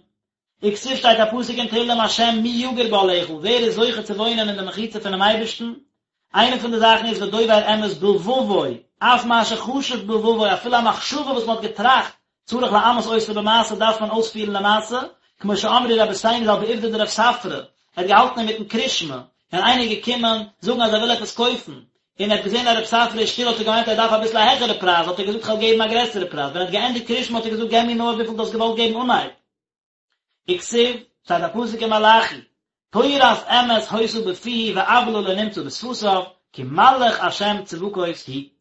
וכתיב שטייט א פסוק אין תהלים השם מי יגור באהלך, ווער איז זוכה צו וואוינען אין די מחיצה פונעם אייבערשטן? איינע פון די זאכן איז ודובר אמת בלבבו, אף מה שחשב בלבבו, אפילו א מחשבה וואס מען האט געטראכט, צריך לאמת אותה במעשה דארף מען אויספירן למעשה, כמו שאמרו רבותינו ז"ל בעובדא דרב ספרא, ער האט געהאלטן אינמיטן קרישמע, און איינער איז געקומען זאגן אז ער וויל עפעס קויפן, און ער האט געזען אז רב ספרא איז שטיל האט ער געמיינט ער דארף אביסל א העכערע פרייז האט ער געזאגט כ'וועל געבן א גרעסערע פרייז, ווען ער האט געענדיגט קרישמע האט ער געזאגט געב מיר נאר וויפיל דו האסט געוואלט געבן אנהייב. וכתיב, שטייט א פסוק אין מלאכי, תורת אמת היתה בפיהו ועוולה לא נמצא בשפתיו, כי מלאך השם צבקות הוא.